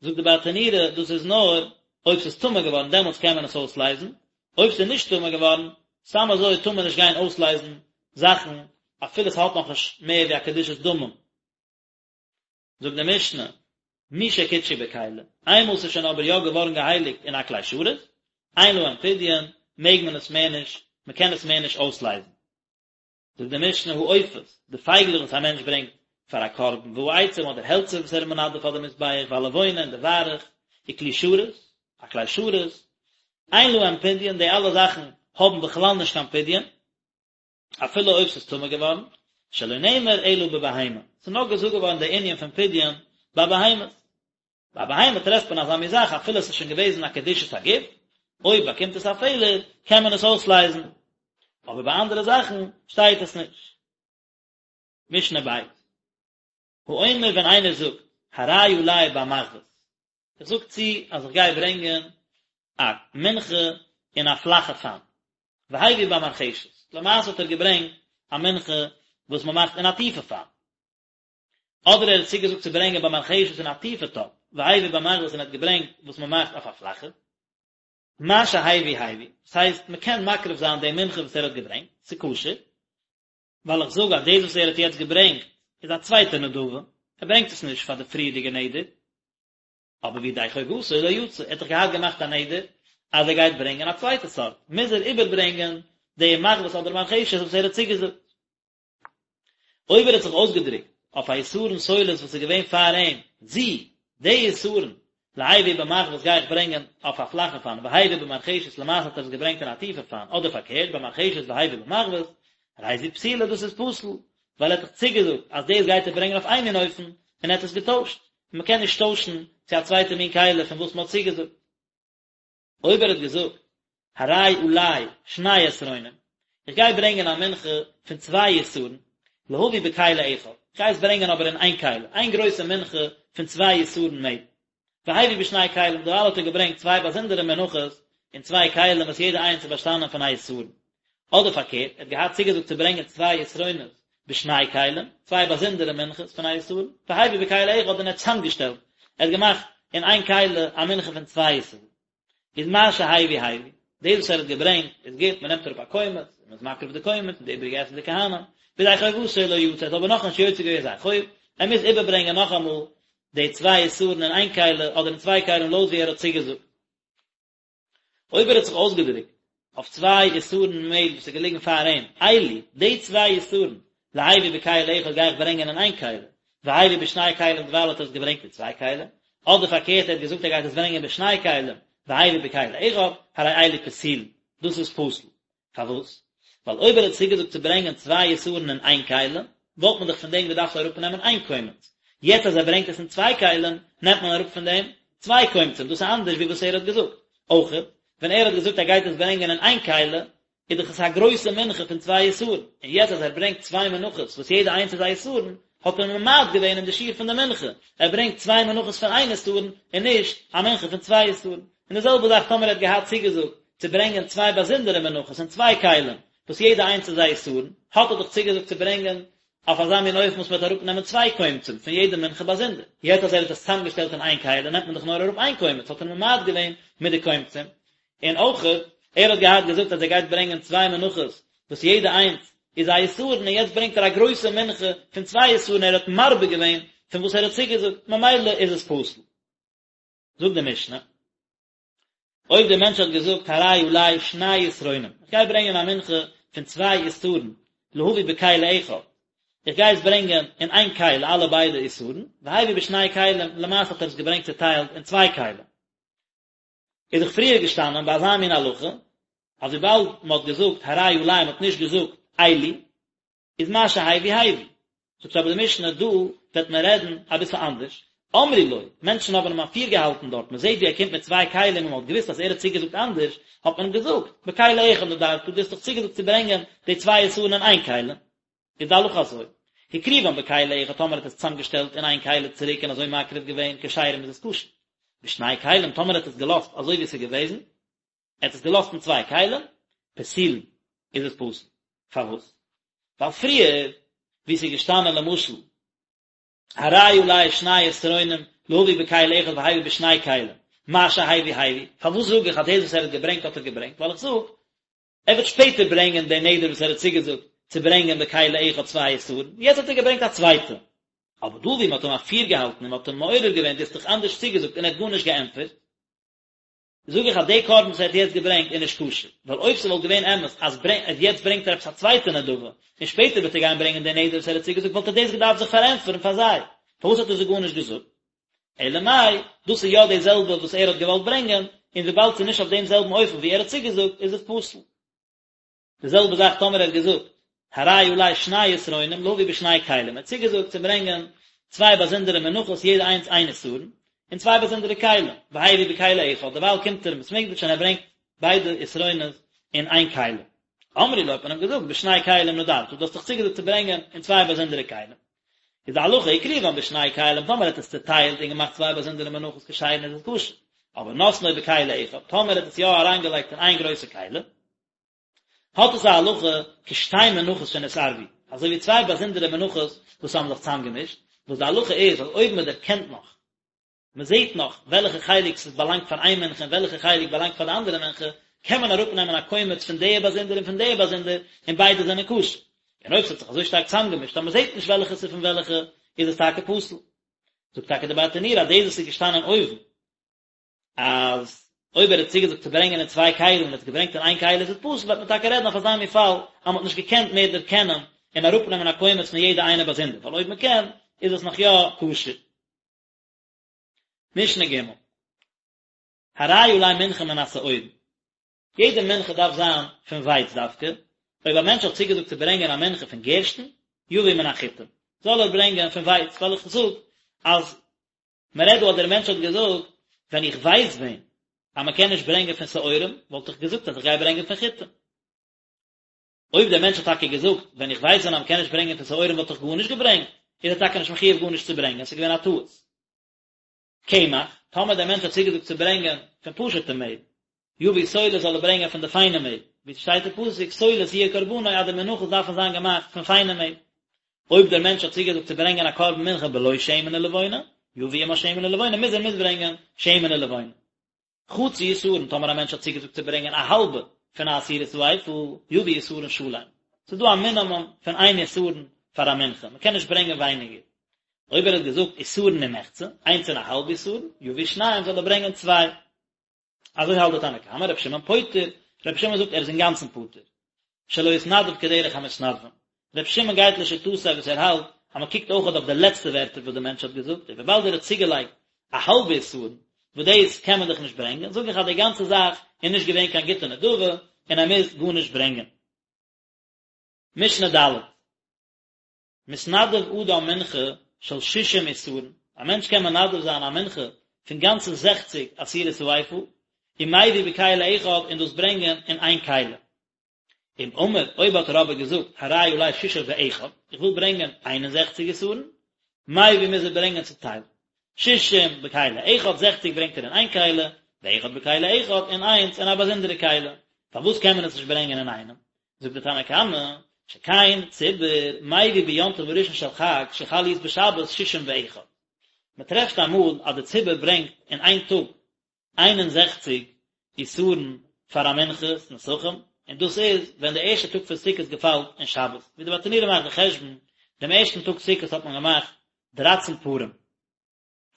זאגט די ברטנורא, דאס איז נאר אויב ס'איז טמא געווארן דעמאלטס קען מען עס אויסלייזן, אויב ס'איז נישט טמא געווארן, סתם אזוי טאר מען נישט גיין אויסלייזן זאכן אפילו ס'האט נאכנישט מער ווי א קדושת דמים. זאגט די משנה, משקדשו בכלי, איינמאל ס'איז שוין אבער יא געווארן געהייליגט אין א כלי שרת, אין להם פדיון, מעג מען עס מער נישט, מ'קען עס מער נישט אויסלייזן. זאגט די משנה העופות, די פייגלעך וואס א מענטש ברענגט פאר א קרבן, והעצים אדער העלצער וואס ער איז מנדב פאר די מזבח, והלבונה און די וויירעך, וכלי שרת, א כלי שרת, אין להם פדיון, די אלע זאכן האבן בכלל נישט קיין פדיון, אפילו אויב ס'איז טמא געווארן, שלא נאמר אלא בבהמה, ס'איז נאר געזאגט געווארן די ענין פון פדיון ביי בהמות. ביי א בהמה טרעפט מען אזא מין זאך אפילו עס איז שוין געוועזן א קדושת הגוף, אויב באקומט עס א פעלער קען מען עס אויסלייזן, אבער ביי אנדערע זאכן שטייט עס נישט. משנה ב'. האומר ווען איינער זאגט הרי עלי במחבת, איך זאג צו אז איך גיי ברענגען א מנחה אין א פלאכע פאן, והביא במרחשת, למעשה האט ער געברענגט א מנחה וואס מען מאכט אין א טיפע פאן, אדער ער האט צוגעזאגט צו ברענגען במרחשת אין א טיפע טאפ, והביא במחבת און ער האט געברענגט וואס מען מאכט אויף א פלאכע. מה שהביא הביא, דאס הייסט מען קען מקריב זיין די מנחה וואס ער האט געברענגט, ס'איז כשר, ווייל איך זאג אז דאס וואס ער האט יעצט געברענגט איז א צווייטע נדבה, ער ברענגט עס נישט פאר די פריערדיגע נדר, אבער וידי חובתו לא יצא, ער האט דאך געהאט געמאכט א נדר אז ער גייט ברענגען א צווייטע סארט, מוז ער איבערברענגען די מחבת אדער מרחשת וואס ער האט צוגעזאגט. אויב ער האט זיך אויסגעדרוקט אויף א עשרון סולת וואס איז געווען פאר אים, זו, די עשרון, להביא במחבת גיי איך ברענגען אויף א פלאכע פאן, והביא במרחשת למעשה האט ער עס געברענגט אין א טיפע פאן, אדער פארקערט, במרחשת והביא במחבת, הרי זו פסולה דאס איז פסול, ווייל ער האט דאך צוגעזאגט אז דאס גייט ער ברענגען אויף איין מין אופן, און ער האט עס געטוישט, און מען קען נישט טוישן צו א צווייטע מין כלי פון וואס מען האט צוגעזאגט. אויב ער האט געזאגט הרי עלי שני עשרונים, איך גיי ברענגען א מנחה פון צוויי עשרון, להביא בכלי אחד, איך גיי עס ברענגען אבער אין איין כלי, איין גרויסע מנחה פון צוויי עשרון מעל. והביא בשני כלים, דערווייל האט ער געברענגט צוויי באזונדערע מנחות אין צוויי כלים וואס יעדע איינס איז באשטאנען פון א עשרון. אדער פארקערט, ער האט געהאט צוגעזאגט צו ברענגען צוויי עשרונות בשני כלים, צוויי באזונדערע מנחות פון א עשרון, והביא בכלי אחד און ער האט צוזאמגעשטעלט, ער האט געמאכט אין איין כלי א מנחה פון צוויי עשרון. איז מה שהביא הביא, דאס וואס ער האט געברענגט איז גוט, מען נעמט אראפ א קומץ, און מען איז מקריב די קומץ, און די איבריגע עסן די כהנים, וידי חובתו לא יצא, ער האט אבער נאכנישט יוצא געווען זיין חוב, ער מוז איבערברענגען נאכאמאל די צוויי עשרון אין איין כלי, אדער אין צוויי כלים לויט ווי ער האט צוגעזאגט. אויב ער האט זיך אויסגעדרוקט אויף צוויי עשרון מעהל וואס איז געליגן פאר אים, אלו, די צוויי עשרון, להביא בכלי אחד גיי איך ברענגען אין איין כלי, והביא בשני כלים דערווייל האט ער עס געברענגט אין צוויי כלים, אדער פארקערט ער האט געזאגט ער גייט עס ברענגען בשני כלים, והביא בכלי אחד, הרי אלו פסולין, דאס איז פסול. פארוואס? ווייל אויב ער האט צוגעזאגט צו ברענגען צוויי עשרון אין איין כלי, וואלט מען דאך פון דעם געדארפט אראפנעמען איין קומץ. יעצט אז ער ברענגט עס אין צוויי כלים, נעמט מען אראפ פון דעם צוויי קומצים, דאס איז אנדערש ווי וואס ער האט געזאגט. אויכעט, ווען ער האט געזאגט ער גייט עס ברענגען אין איין כלי, איז דאך עס א גרויסע מנחה פון צוויי עשרון, און יעצט אז ער ברענגט צוויי מנחות וואס יעדע איינס איז א עשרון, האט ער ממעט געווען אין די שיעור פון די מנחה, ער ברענגט צוויי מנחות פון איין עשרון, און נישט א מנחה פון צוויי עשרון. און די זעלבע זאך טאמער ער האט געהאט צוגעזאגט צו ברענגען צוויי באזונדערע מנחות אין צוויי כלים, וואס יעדע איינס איז א עשרון, האט ער דאך צוגעזאגט צו ברענגען אויף אזא מין אופן וואס מען וועט אראפנעמען צוויי קומצים פון יעדע מנחה באזונדער. יעצט אז ער האט עס צוזאמגעשטעלט אין איין כלי נעמט מען דאך נאר אראפ איין קומץ, האט ער ממעט געווען מיט די קומצים. און אויכעט, ער האט געהאט געזאגט אז ער גייט ברענגען צוויי מנחות וואס יעדע איינס איז א עשרון, און יעצט ברענגט ער א גרויסע מנחה פון צוויי עשרון, ער האט מרבה געווען פון וואס ער האט צוגעזאגט, ממילא איז עס פסול. זאגט די משנה, אויב דער מענטש האט געזאגט הרי עלי שני עשרונים, איך גיי ברענגען א מנחה פון צוויי עשרון, להביא בכלי אחד, איך גיי עס ברענגען אין איין כלי אלע ביידע עשרון, והביא בשני כלים, למעשה האט ער עס געברענגט צוטיילט אין צוויי כלים. איז דאך פריער געשטאנען ביי אזא מין הלכה, אז וויבאלד מען האט געזאגט הרי עלי מען האט נישט געזאגט אלו, איז מה שהביא הביא. זאגט אבער די משנה דא וועט מען רעדן אביסל אנדערש, אמרו לו, מענטשן האבן אים אפירגעהאלטן דארט, מען זעט ווי ער קומט מיט צוויי כלים און מען האט געוואוסט אז ער האט צוגעזאגט אנדערש, האט מען אים געזאגט, בכלי אחד נדרת, דו האסט דאך צוגעזאגט צו ברענגען די צוויי עשרון אין איין כלי. איז די הלכה אזוי, הקריבן בכלי אחד טאמער האט עס צוזאמגעשטעלט אין איין כלי צוריק און אזוי מקריב געווען כשרים איז עס כשר, בשני כלים טאמער האט עס געלאזט אזוי ווי עס איז געוועזן, ער האט עס געלאזט אין צוויי כלים, פסולין, איז עס פסול. פארוואס? ווייל פריער, ווי עס איז געשטאנען למשל, הרי עלי שני עשרונים להביא בכלי אחד והביא בשני כלים, מה שהביא הביא, פארוואס זאג איך אז דאס וואס ער האט געברענגט האט ער געברענגט? ווייל איך זאג, ער וועט שפעטער ברענגען די נדר וואס ער האט צוגעזאגט צו ברענגען בכלי אחד צוויי עשרון, יעצט האט ער געברענגט א צווייטע. אבער דא ווי מען האט אים אפירגעהאלטן און מען האט אים מעורר געווען דו האסט דאך אנדערש צוגעזאגט און ער האט גארנישט געענטפערט, זאג איך אז די קרבן וואס ער האט יעצט געברענגט איז נישט כשר, ווייל אויב ס'וואלט געווען אמת אז יעצט ברענגט ער עפעס א צווייטע נדבה, און שפעטער וועט ער גיין ברענגען די נדר וואס ער האט צוגעזאגט וואלט ער דאס געדארפט זיך פארענטפערן פאר זיי, פארוואס האט ער זיי גארנישט געזאגט? אלא מאי, דאס איז יא די זעלבע וואס ער האט געוואלט ברענגען, און וויבאלד ס'איז נישט אויף דעם זעלבן אופן ווי ער האט צוגעזאגט איז עס פסול. די זעלבע זאך טאמער ער האט געזאגט הרי עלי שני עשרונים להביא בשני כלים, ער האט צוגעזאגט צו ברענגען צוויי באזונדערע מנחות יעדע איינס איין עשרון, אין צוויי באזונדערע כלים, והביא בכלי אחד, דערווייל קומט ער אין בית מקדש און ער ברענגט ביידע עשרונות אין איין כלי. אמרו לו האט מען אים געזאגט בשני כלים נדרת, דו האסט דאך צוגעזאגט צו ברענגען אין צוויי באזונדערע כלים. איז די הלכה הקריבן בשני כלים, טאמער ער האט עס צוטיילט און געמאכט צוויי באזונדערע מנחות כשרין איז עס כשר, אבער נתנו בכלי אחד, טאמער ער האט עס יא אריינגעלייגט אין איין גרויסע כלי, האט עס א הלכה כשתי מנחות שנתערבו, אזוי ווי צוויי באזונדערע מנחות וואס האבן זיך צוזאמגעמישט, וואס די הלכה איז אז אויב מען דערקענט נאך, מען זעט נאך וועלכע חלק ס'איז באלאנגט פאר איין מנחה און וועלכע חלק באלאנגט פאר די אנדערע מנחה, קען מען אראפנעמען א קומץ פון די באזונדער און פון די באזונדער, און ביידע זענען כשר. און אויב ס'האט זיך אזוי שטארק צוזאמגעמישט אז מען זעט נישט וועלכע ס'איז פון וועלכע, איז עס טאקע פסול. זאגט טאקע די ברטנורא אז דאס וואס איז געשטאנען אויבן, אז אויב ער האט צוגעזאגט צו ברענגען אין צוויי כלים און ער האט עס געברענגט אין איין כלי איז עס פסול, וועט מען טאקע רעדן אויף אזא מין פאל אז מען האט נישט געקענט מער דערקענען און אראפנעמען א קומץ פון יעדע איינע באזונדער, ווייל אויב מען קען איז עס נאך יא כשר. משנה ג' הרי עלי מנחה מן השעורים, יעדע מנחה דארף זיין פון ווייץ דווקא, אויב א מענטש האט צוגעזאגט צו ברענגען א מנחה פון גערשטן, יביא מן החיטים, זאל ער ברענגען פון ווייץ, ווייל איך זאג אז מען רעדט דא אז דער מענטש האט געזאגט, ווען איך ווייס ווען אז מען קען נישט ברענגען פון שעורים, וואלט איך געזאגט אז איך גיי ברענגען פון חיטים. אויב דער מענטש האט טאקע געזאגט, ווען איך ווייס ווען אז מען קען נישט ברענגען פון שעורים וואלט איך גארנישט געברענגט, איז ער טאקע נישט מחויב גארנישט צו ברענגען, עס איז געווען א טעות. קמח, טאמער דער מענטש האט צוגעזאגט צו ברענגען פון פשוט'ע מעל, יביא סולת זאל ער ברענגען פון די פיינע מעל, ווי ס'שטייט אין פסוק סולת יהיה קרבנו אז די מנחות דארפן זיין געמאכט פון פיינע מעל. אויב דער מענטש האט צוגעזאגט צו ברענגען א קרבן מנחה בלא שמן ולבונה, יביא עמה שמן ולבונה, מוז ער מיטברענגען שמן ולבונה. חצי עשרון, טאמער א מענטש האט צוגעזאגט צו ברענגען א האלבע פון א עשירית האיפה, יביא עשרון שלם. ס'איז דא א מינימום פון איין עשרון פאר א מנחה, מ'קען נישט ברענגען ווייניגער. אויב ער האט געזאגט עשרון ומחצה, איינס און א האלב עשרון, יביא שניים, זאל ער ברענגען צוויי. אזוי האלט די תנא קמא, רבי שמעון פוטר, רבי שמעון זאגט ער איז אינגאנצן פטור. שלא התנדב כדרך המתנדבים. רבי שמעון גייט לשיטתו וואס ער האלט אז מען קוקט אויכעט אויף די לעצטע ווערטער וואס די מענטש האט געזאגט, און וויבאלד ער האט צוגעלייגט א האלבע עשרון, וואס דאס קען מען דאך נישט ברענגען, זאג איך אז די גאנצע זאך איז נישט געווען קיין גוטע נדבה, און ער מוז גארנישט ברענגען. משנה ד'. מתנדב אדם מנחה של שישים עשרון, א מענטש קען מנדב זיין א מנחה פון גאנצע זעכציג עשירית האיפה, ומביא בכלי אחד און דאס ברענגען אין איין כלי. אם אמר, אויב האט ער אבער געזאגט, הרי עלי שישים ואחד, איך וויל ברענגען איין און זעכציג עשרון, מביא מוז ער ברענגען צוטיילט, שישים בכלי אחד, זעכציג ברענגט ער אין איין כלי, ואחד בכלי אחד, און איינס אין א באזונדערע כלי. פארוואס קען מען עס נישט ברענגען אינאיינעם? זאגט דער תנא קמא, שכן ציבור מביא ביום טוב הראשון של חג שחל להיות בשבת שישים ואחד. מען טרעפט אמאל אז די ציבור ברענגט אין איין טאג 61 עשרון פאר א מנחת נסכים, און דאס איז ווען די ערשטע טאג פון סוכות געפאלט אין שבת, ווי די ברטנורא מאכט די חשבון, דעם ערשטן טאג סוכות האט מען געמאכט דרייצן פרים,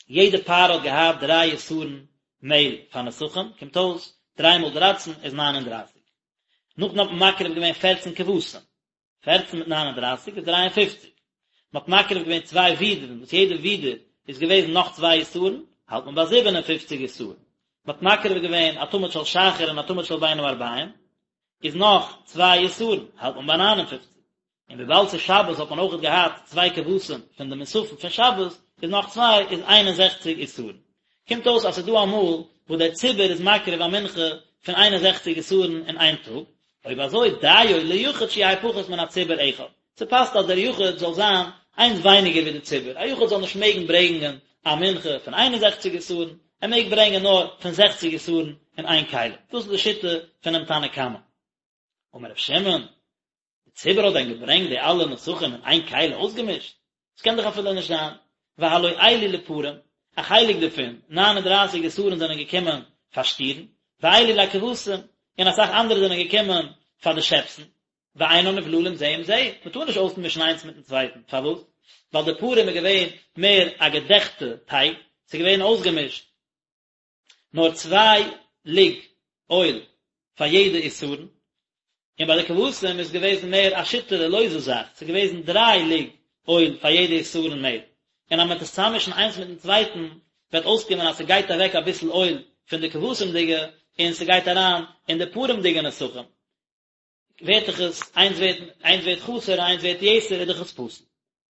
יעדע פר האט געהאט דריי עשרון מעהל פאר נסכים, קומט אויס דריי מאל דרייצן איז ניין און דרייסיג. נאכדעם האט מען מקריב געווען פערצן כבשים, פערצן מיט ניין און דרייסיג איז דריי און פופציג. מען האט מקריב געווען צוויי ווידערן, וואס יעדע ווידער איז געוועזן נאך צוויי עשרון, האלט מען ביי זיבן און פופציג עשרון. מען האט מקריב געווען א תמיד של שחר און א תמיד של בין הערביים, איז נאך צוויי עשרון, האלט מען ביי ניין און פופציג. און וויבאלד ס'איז שבת האט מען אויכעט געהאט צוויי כבשים פון די מוספים פון שבת, איז נאך צוויי איז איין און זעכציג עשרון. קומט אויס אז ס'איז דא אמאל וואס דער ציבור איז מקריב א מנחה פון איין און זעכציג עשרון אין איין טאג, אויב אזוי דיו ליחיד שיהא פחות מן הציבור אחד, ס'פאסט אז דער יחיד זאל זיין איינס ווייניגער ווי דער ציבור, א יחיד זאל נישט מעגן ברענגען א מנחה פון איין און זעכציג עשרון, ער מעג ברענגען נאר פון זעכציג עשרון אין איין כלי. דאס איז די שיטה פונעם תנא קמא. אמר ר' שמעון, די ציבור האט דען געברענגט די אלע נסכים אין איין כלי אויסגעמישט? עס קען דאך אפילו נישט זיין, והלא אלו לפרים, א חלק דערפון, ניין און דרייסיג עשרון זענען געקומען פאר שטירן, ואלו לכבשים, און אסאך אנדערע זענען געקומען פאר די שעפסן, ואינן נבללים זה עם זה, מען טאר נישט אויסמישן איינס מיטן צווייטן, פארוואס? ווייל די פרים איז געווען מער א געדעכטע טייג, ס'איז געווען אויסגעמישט, נאר צוויי לוג אויל פאר יעדע עשרון, און ביי די כבשים איז געוועזן מער א שיטערע לויזע זאך, ס'איז געוועזן דריי לוג אויל פאר יעדע עשרון מעל, און אז מען וועט עס צוזאממישן איינס מיטן צווייטן וועט אויסקומען אז ס'גייט אוועק אביסל אויל פון די כבשים'דיגע און ס'גייט אריין אין די פרים'דיגע נסכים, ווערט דאך עס, איינס ווערט, איינס ווערט חסר און איינס ווערט יתר איז דאך עס פסול.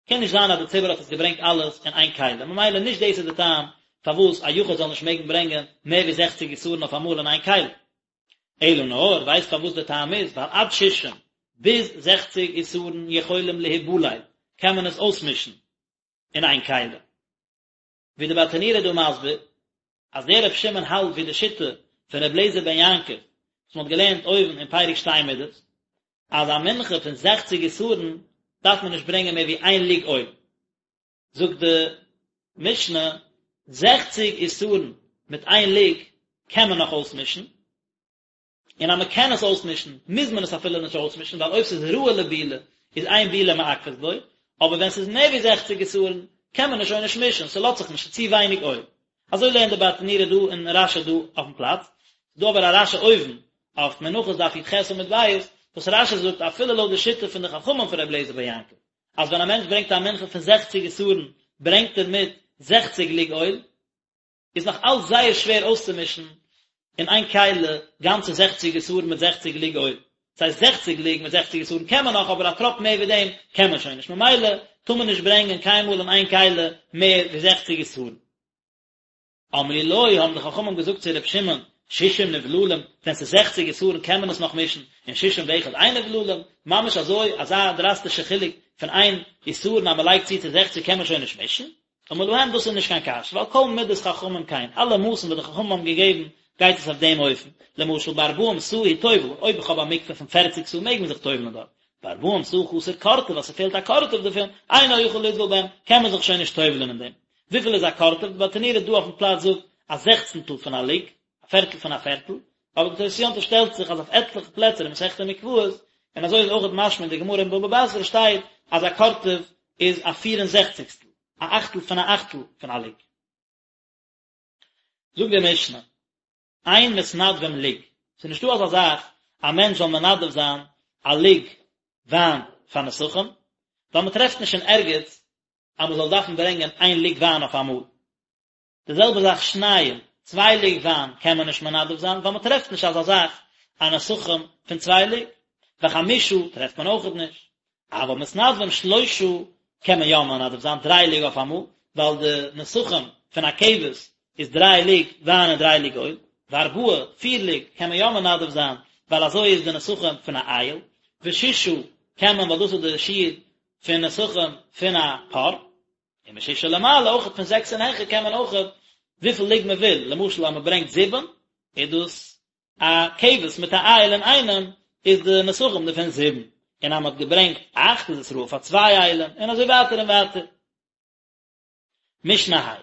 קען נישט זיין אז די ציבור האט עס געברענגט אלעס אין איין כלי, ממילא נישט דאס איז די טעם. פארוואס א יחיד זאל נישט מעגן ברענגען מער ווי זעכציג עשרון אויף אמאל אין איין כלי. אלא נאר, ווייסט פארוואס די טעם איז, ווייל עד שישים, ביז זעכציג עשרון יכולים להיבלל, קען מען עס אויסמישן אין איין כלי. ווי די ברטנורא איז דא מסביר, אז דער רבי שמעון האלט ווי די שיטה פון רבי אליעזר בן יעקב, וואס מען האט געלערנט אויבן אין פרק שתי מדות, אז א מנחה פון זעכציג עשרון דארף מען נישט ברענגען מער ווי איין לוג אויל. זאגט די משנה, זעכציג עשרון מיט איין לוג קען מען נאך אויסמישן, און אז מען קען עס אויסמישן מוז מען עס אפילו נישט אויסמישן, ווייל אויב ס'איז ראוי לבילה איז אין בילה מעכבת בו, אבער ווען ס'איז מער ווי זעכציג עשרון קען מען עס שוין נישט מישן, ס'לאזט זיך נישט, ס'איז צו ווייניג אויל. אזוי לערנט די ברטנורא דא און רש"י דא אויפן פלאץ. ס'איז דא אבער א רש"י אויבן אויף מנחות דף י"ח עמוד ב', וואס רש"י זאגט אפילו לויט די שיטה פון די חכמים פון רבי אליעזר בן יעקב, אז ווען א מענטש ברענגט א מנחה פון זעכציג עשרון ברענגט ער מיט זעכציג לוג אויל, איז נאך אלץ זייער שווער אויסצומישן אין איין כלי גאנצע זעכציג עשרון מיט זעכציג לוג אויל. דאס הייסט זעכציג לוג מיט זעכציג עשרון קען מען נאך אבער א טראפ מער ווי דעם קען מען שוין נישט ממילא טאר מען נישט ברענגען קיינמאל אין איין כלי מער ווי זעכציג עשרון. אמרו לו, האבן די חכמים געזאגט צו ר' שמעון, שישים נבללים, ווען ס'איז זעכציג עשרון קען מען עס נאך מישן, און שישים ואחד אין נבללים, ממש אזוי, אזא דראסטישע חילוק פון איין עשרון אז מ'לייגט צו צו זעכציג קען מען שוין נישט מישן? אמר להם דאס איז נישט קיין קשיא, ווייל כל מדת חכמים כן, אלע מאסן וואס די חכמים האבן געגעבן גייט עס אויף דעם אופן, למשל בארבעים סאה הוא טובל, אויב איך האב א מקווה פון פערציג סאה מעג מען זיך טובל'ן דארט, בארבעים סאה חסר קורטוב אז ס'פעלט א קורטוב דערפון, אינו יכול לטבול בהם, קען מען זיך שוין נישט טובל'ן אין דעם. וויפיל איז א קורטוב? די ברטנורא דא אויפן פלאץ זאגט א זעכצנטל פון א לוג, א פערטל פון א פערטל, אבער די תוס' יום טוב שטעלט זיך אז אויף עטליכע פלעצער אין מסכת מקוואות, און אזוי איז אויך משמע אין די גמרא אין בבא בתרא שטייט אז א קורטוב איז א פיר און זעכציגסטל, א אכטל פון א אכטל פון א לוג. זאגט די משנה, אין מתנדבים לוג, ס'איז נישטא אזא זאך א מענטש זאל מנדב זיין א לוג וויין פאר נסכים, ווייל מ'טרעפט נישט אין ערגעץ אז מ'זאל דארפן ברענגען איין לוג וויין אויף אמאל. די זעלבע זאך שניים, צוויי לוג וויין קען מען נישט מנדב זיין ווייל מען טרעפט נישט אזא זאך א נסכים פון צוויי לוג, וחמשה טרעפט מען אויכעט נישט, אבל מתנדבים שלושה קען מען יא מנדב זיין דריי לוג אויף אמאל, ווייל די נסכים פון א כבש איז דריי לוג וויין און דריי לוג אויל, וארבעה, פיר לוג קען מען יא מנדב זיין ווייל אזוי איז די נסכים פון א איל, וששה קען מען ווייל דאס איז די שיעור פון נסכים פון א פר. און משישה ולמעלה אויכעט פון זעקס און העכער קען מען אויכעט וויפיל לוג מען וויל, למשל אז מען ברענגט זיבן איז דאס א כבש מיט א איל אינאיינעם איז די נסכים דערפון זיבן, און אז מען האט געברענגט אכט איז עס ראוי פאר צוויי אילים, און אזוי ווייטער און ווייטער. משנה ה'.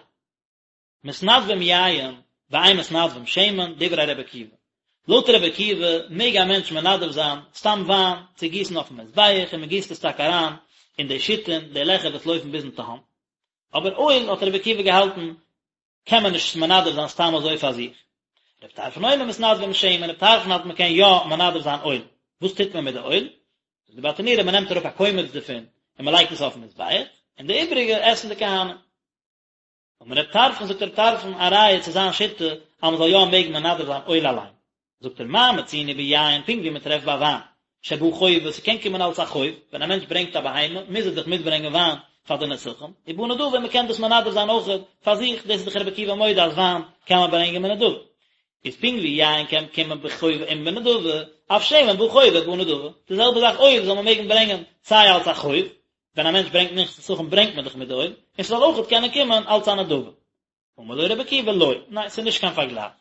מתנדבים יין ואין מתנדבים שמן, דברי ר' עקיבא. לויט ר' עקיבא מעג א מענטש מנדב זיין סתם וויין צו גיסן אויפן מזבח און מען גיסט עס טאקע אריין אין די שיתין, די לעכער וואס לויפן ביזן תהום. אבער אויל האט ר' עקיבא געהאלטן קען מען נישט מנדב זיין סתם אזוי פאר זיך. ר' טרפון אומר מתנדבים שמן, ר' טרפון האלט מען קען יא מנדב זיין אויל. וואס טוט מען מיט די אויל? זאגט די ברטנורא מען נעמט אראפ א קומץ דערפון און מען לייגט עס אויפן מזבח, און די איבריגע עסן די כהנים. אמר רב טרפון זאגט רב טרפון א ראיה צו זיין שיטה אז מען זאל יא מעגן מנדב זיין אויל אליין, זאגט ער מה מצינו ביין פונקט ווי מען טרעפט ביי וויין שבא חובה ס'קען קומען אלס א חוב, ווען א מענטש ברענגט א בהמה מוז ער דאך מיטברענגען וויין פאר די נסכים, ובא נדבה מען קען דאס מנדב זיין אויך פאר זיך, דאס איז דאך רבי עקיבא מודה אז וויין קען מען ברענגען בנדבה, איז פונקט ווי יין קען קומען בחובה און בנדבה, אף שמן בא חובה ובא נדבה, די זעלבע זאך אויל זאל מען מעגן ברענגען סיי אלס א חוב, ווען א מענטש ברענגט מנחת נסכים ברענגט מען דאך מיט די אויל, און ס'זאל אויכעט קענען קומען אלץ א נדבה. אמר לו רבי עקיבא לא, ניין ס'איז נישט קיין פארגלייך.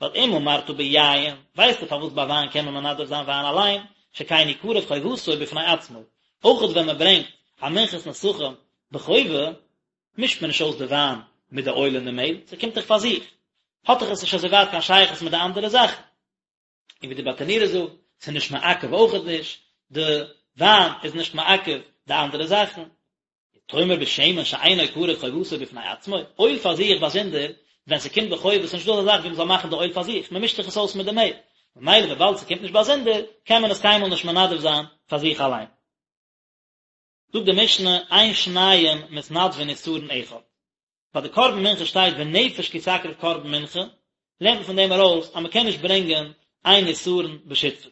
ווייל אם אמרת ביין, ווייסטו פארוואס ביי וויין קען מען מנדב זיין וויין אליין, שכן הוא קרב חובתו בפני עצמו, אויכעט ווען מען ברענגט א מנחת נסכים בחובה, מישט מען נישט אויס די וויין מיט די אויל און די מעהל, ס'קומט דאך פאר זיך, האט דאך עס נישט אזוי ווייט קיין שייכות מיט די אנדערע זאכן. און ווי די ברטנורא זאגט, ס'איז נישט מעכב אויכעט נישט, די וויין איז נישט מעכב די אנדערע זאכן. תאמר בשמן שאינו קרב חובתו בפני עצמו, אויל פאר זיך באזונדער, ווען ס'קומט בחובה איז נישטא אזא זאך ווי מ'זאל מאכן די אויל פאר זיך, מ'מישט דאך עס אויס מיט די מעהל, ממילא וויבאלד ס'קומט נישט באזונדער, קען מען עס קיינמאל נישט מנדב זיין פאר זיך אליין. זאגט די משנה, אין שניים מתנדבין עשרון אחד. ביי די קרבן מנחה שטייט ונפש כי תקריב קרבן מנחה, לערנט מען פון דעם ארויס אז מען קען נישט ברענגען איין עשרון בשותפות.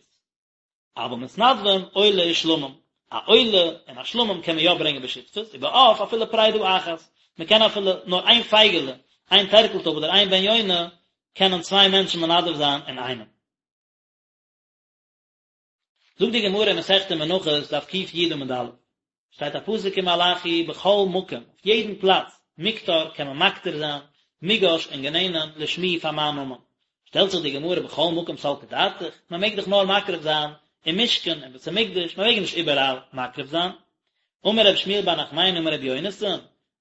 אבל מתנדבים עולה ושלמים, א עולה און א שלמים קען מען יא ברענגען בשותפות, ובעוף אפילו פרידה אחת, מען קען אפילו נאר איין פייגעלע. איין טערקלטויב אדער איין בן יונה קענען צוויי מענטשן מנדב זיין אינאיינעם. זאגט די גמרא אין מסכת מנחות דף ק"י עמוד א', שטייט א פסוק אין מלאכי בכל מקום, אויף יעדן פלאץ, מוקטר קען מען מקטיר זיין, מוגש און גענענען, לשמי פאר מיין נאמען. שטעלט זיך די גמרא בכל מקום סלקא דעתך, מען מעג דאך נאר מקריב זיין אין משכן אין בית המקדש, מען מעג נישט איבעראל מקריב זיין. אמר רב שמואל בר נחמני אמר רבי יונתן,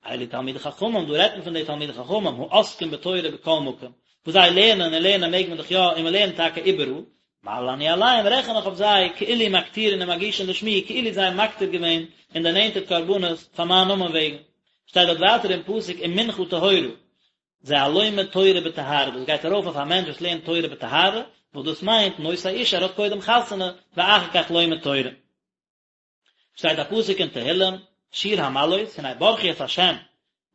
אלו תלמידי חכמים, דא רעדט מען פון די תלמידי חכמים, העוסקים בתורה בכל מקום, וואס זיי לערנען און לערנען מעג מען דאך יא, און מען לערנט טאקע איבעראל, מעלה אני עליהם, רעכן איך אויף זיי, כאילו מקטירין ומגישין לשמי, כאילו זיי האבן מקטיר געווען און דערנענטערט קרבנות פאר מיין נאמען וועגן. שטייט דארט ווייטער אין פסוק ומנחה טהורה, זה הלומד תורה בטהרה, דאס גייט ארויף אויף א מענטש וואס לערנט תורה בטהרה, וואס דאס מיינט נושא אישה, ער האט קודם חתונה, ואחר כך לומד תורה. שטייט א פסוק אין תהילים, שיר המעלות, הנה ברכו את השם,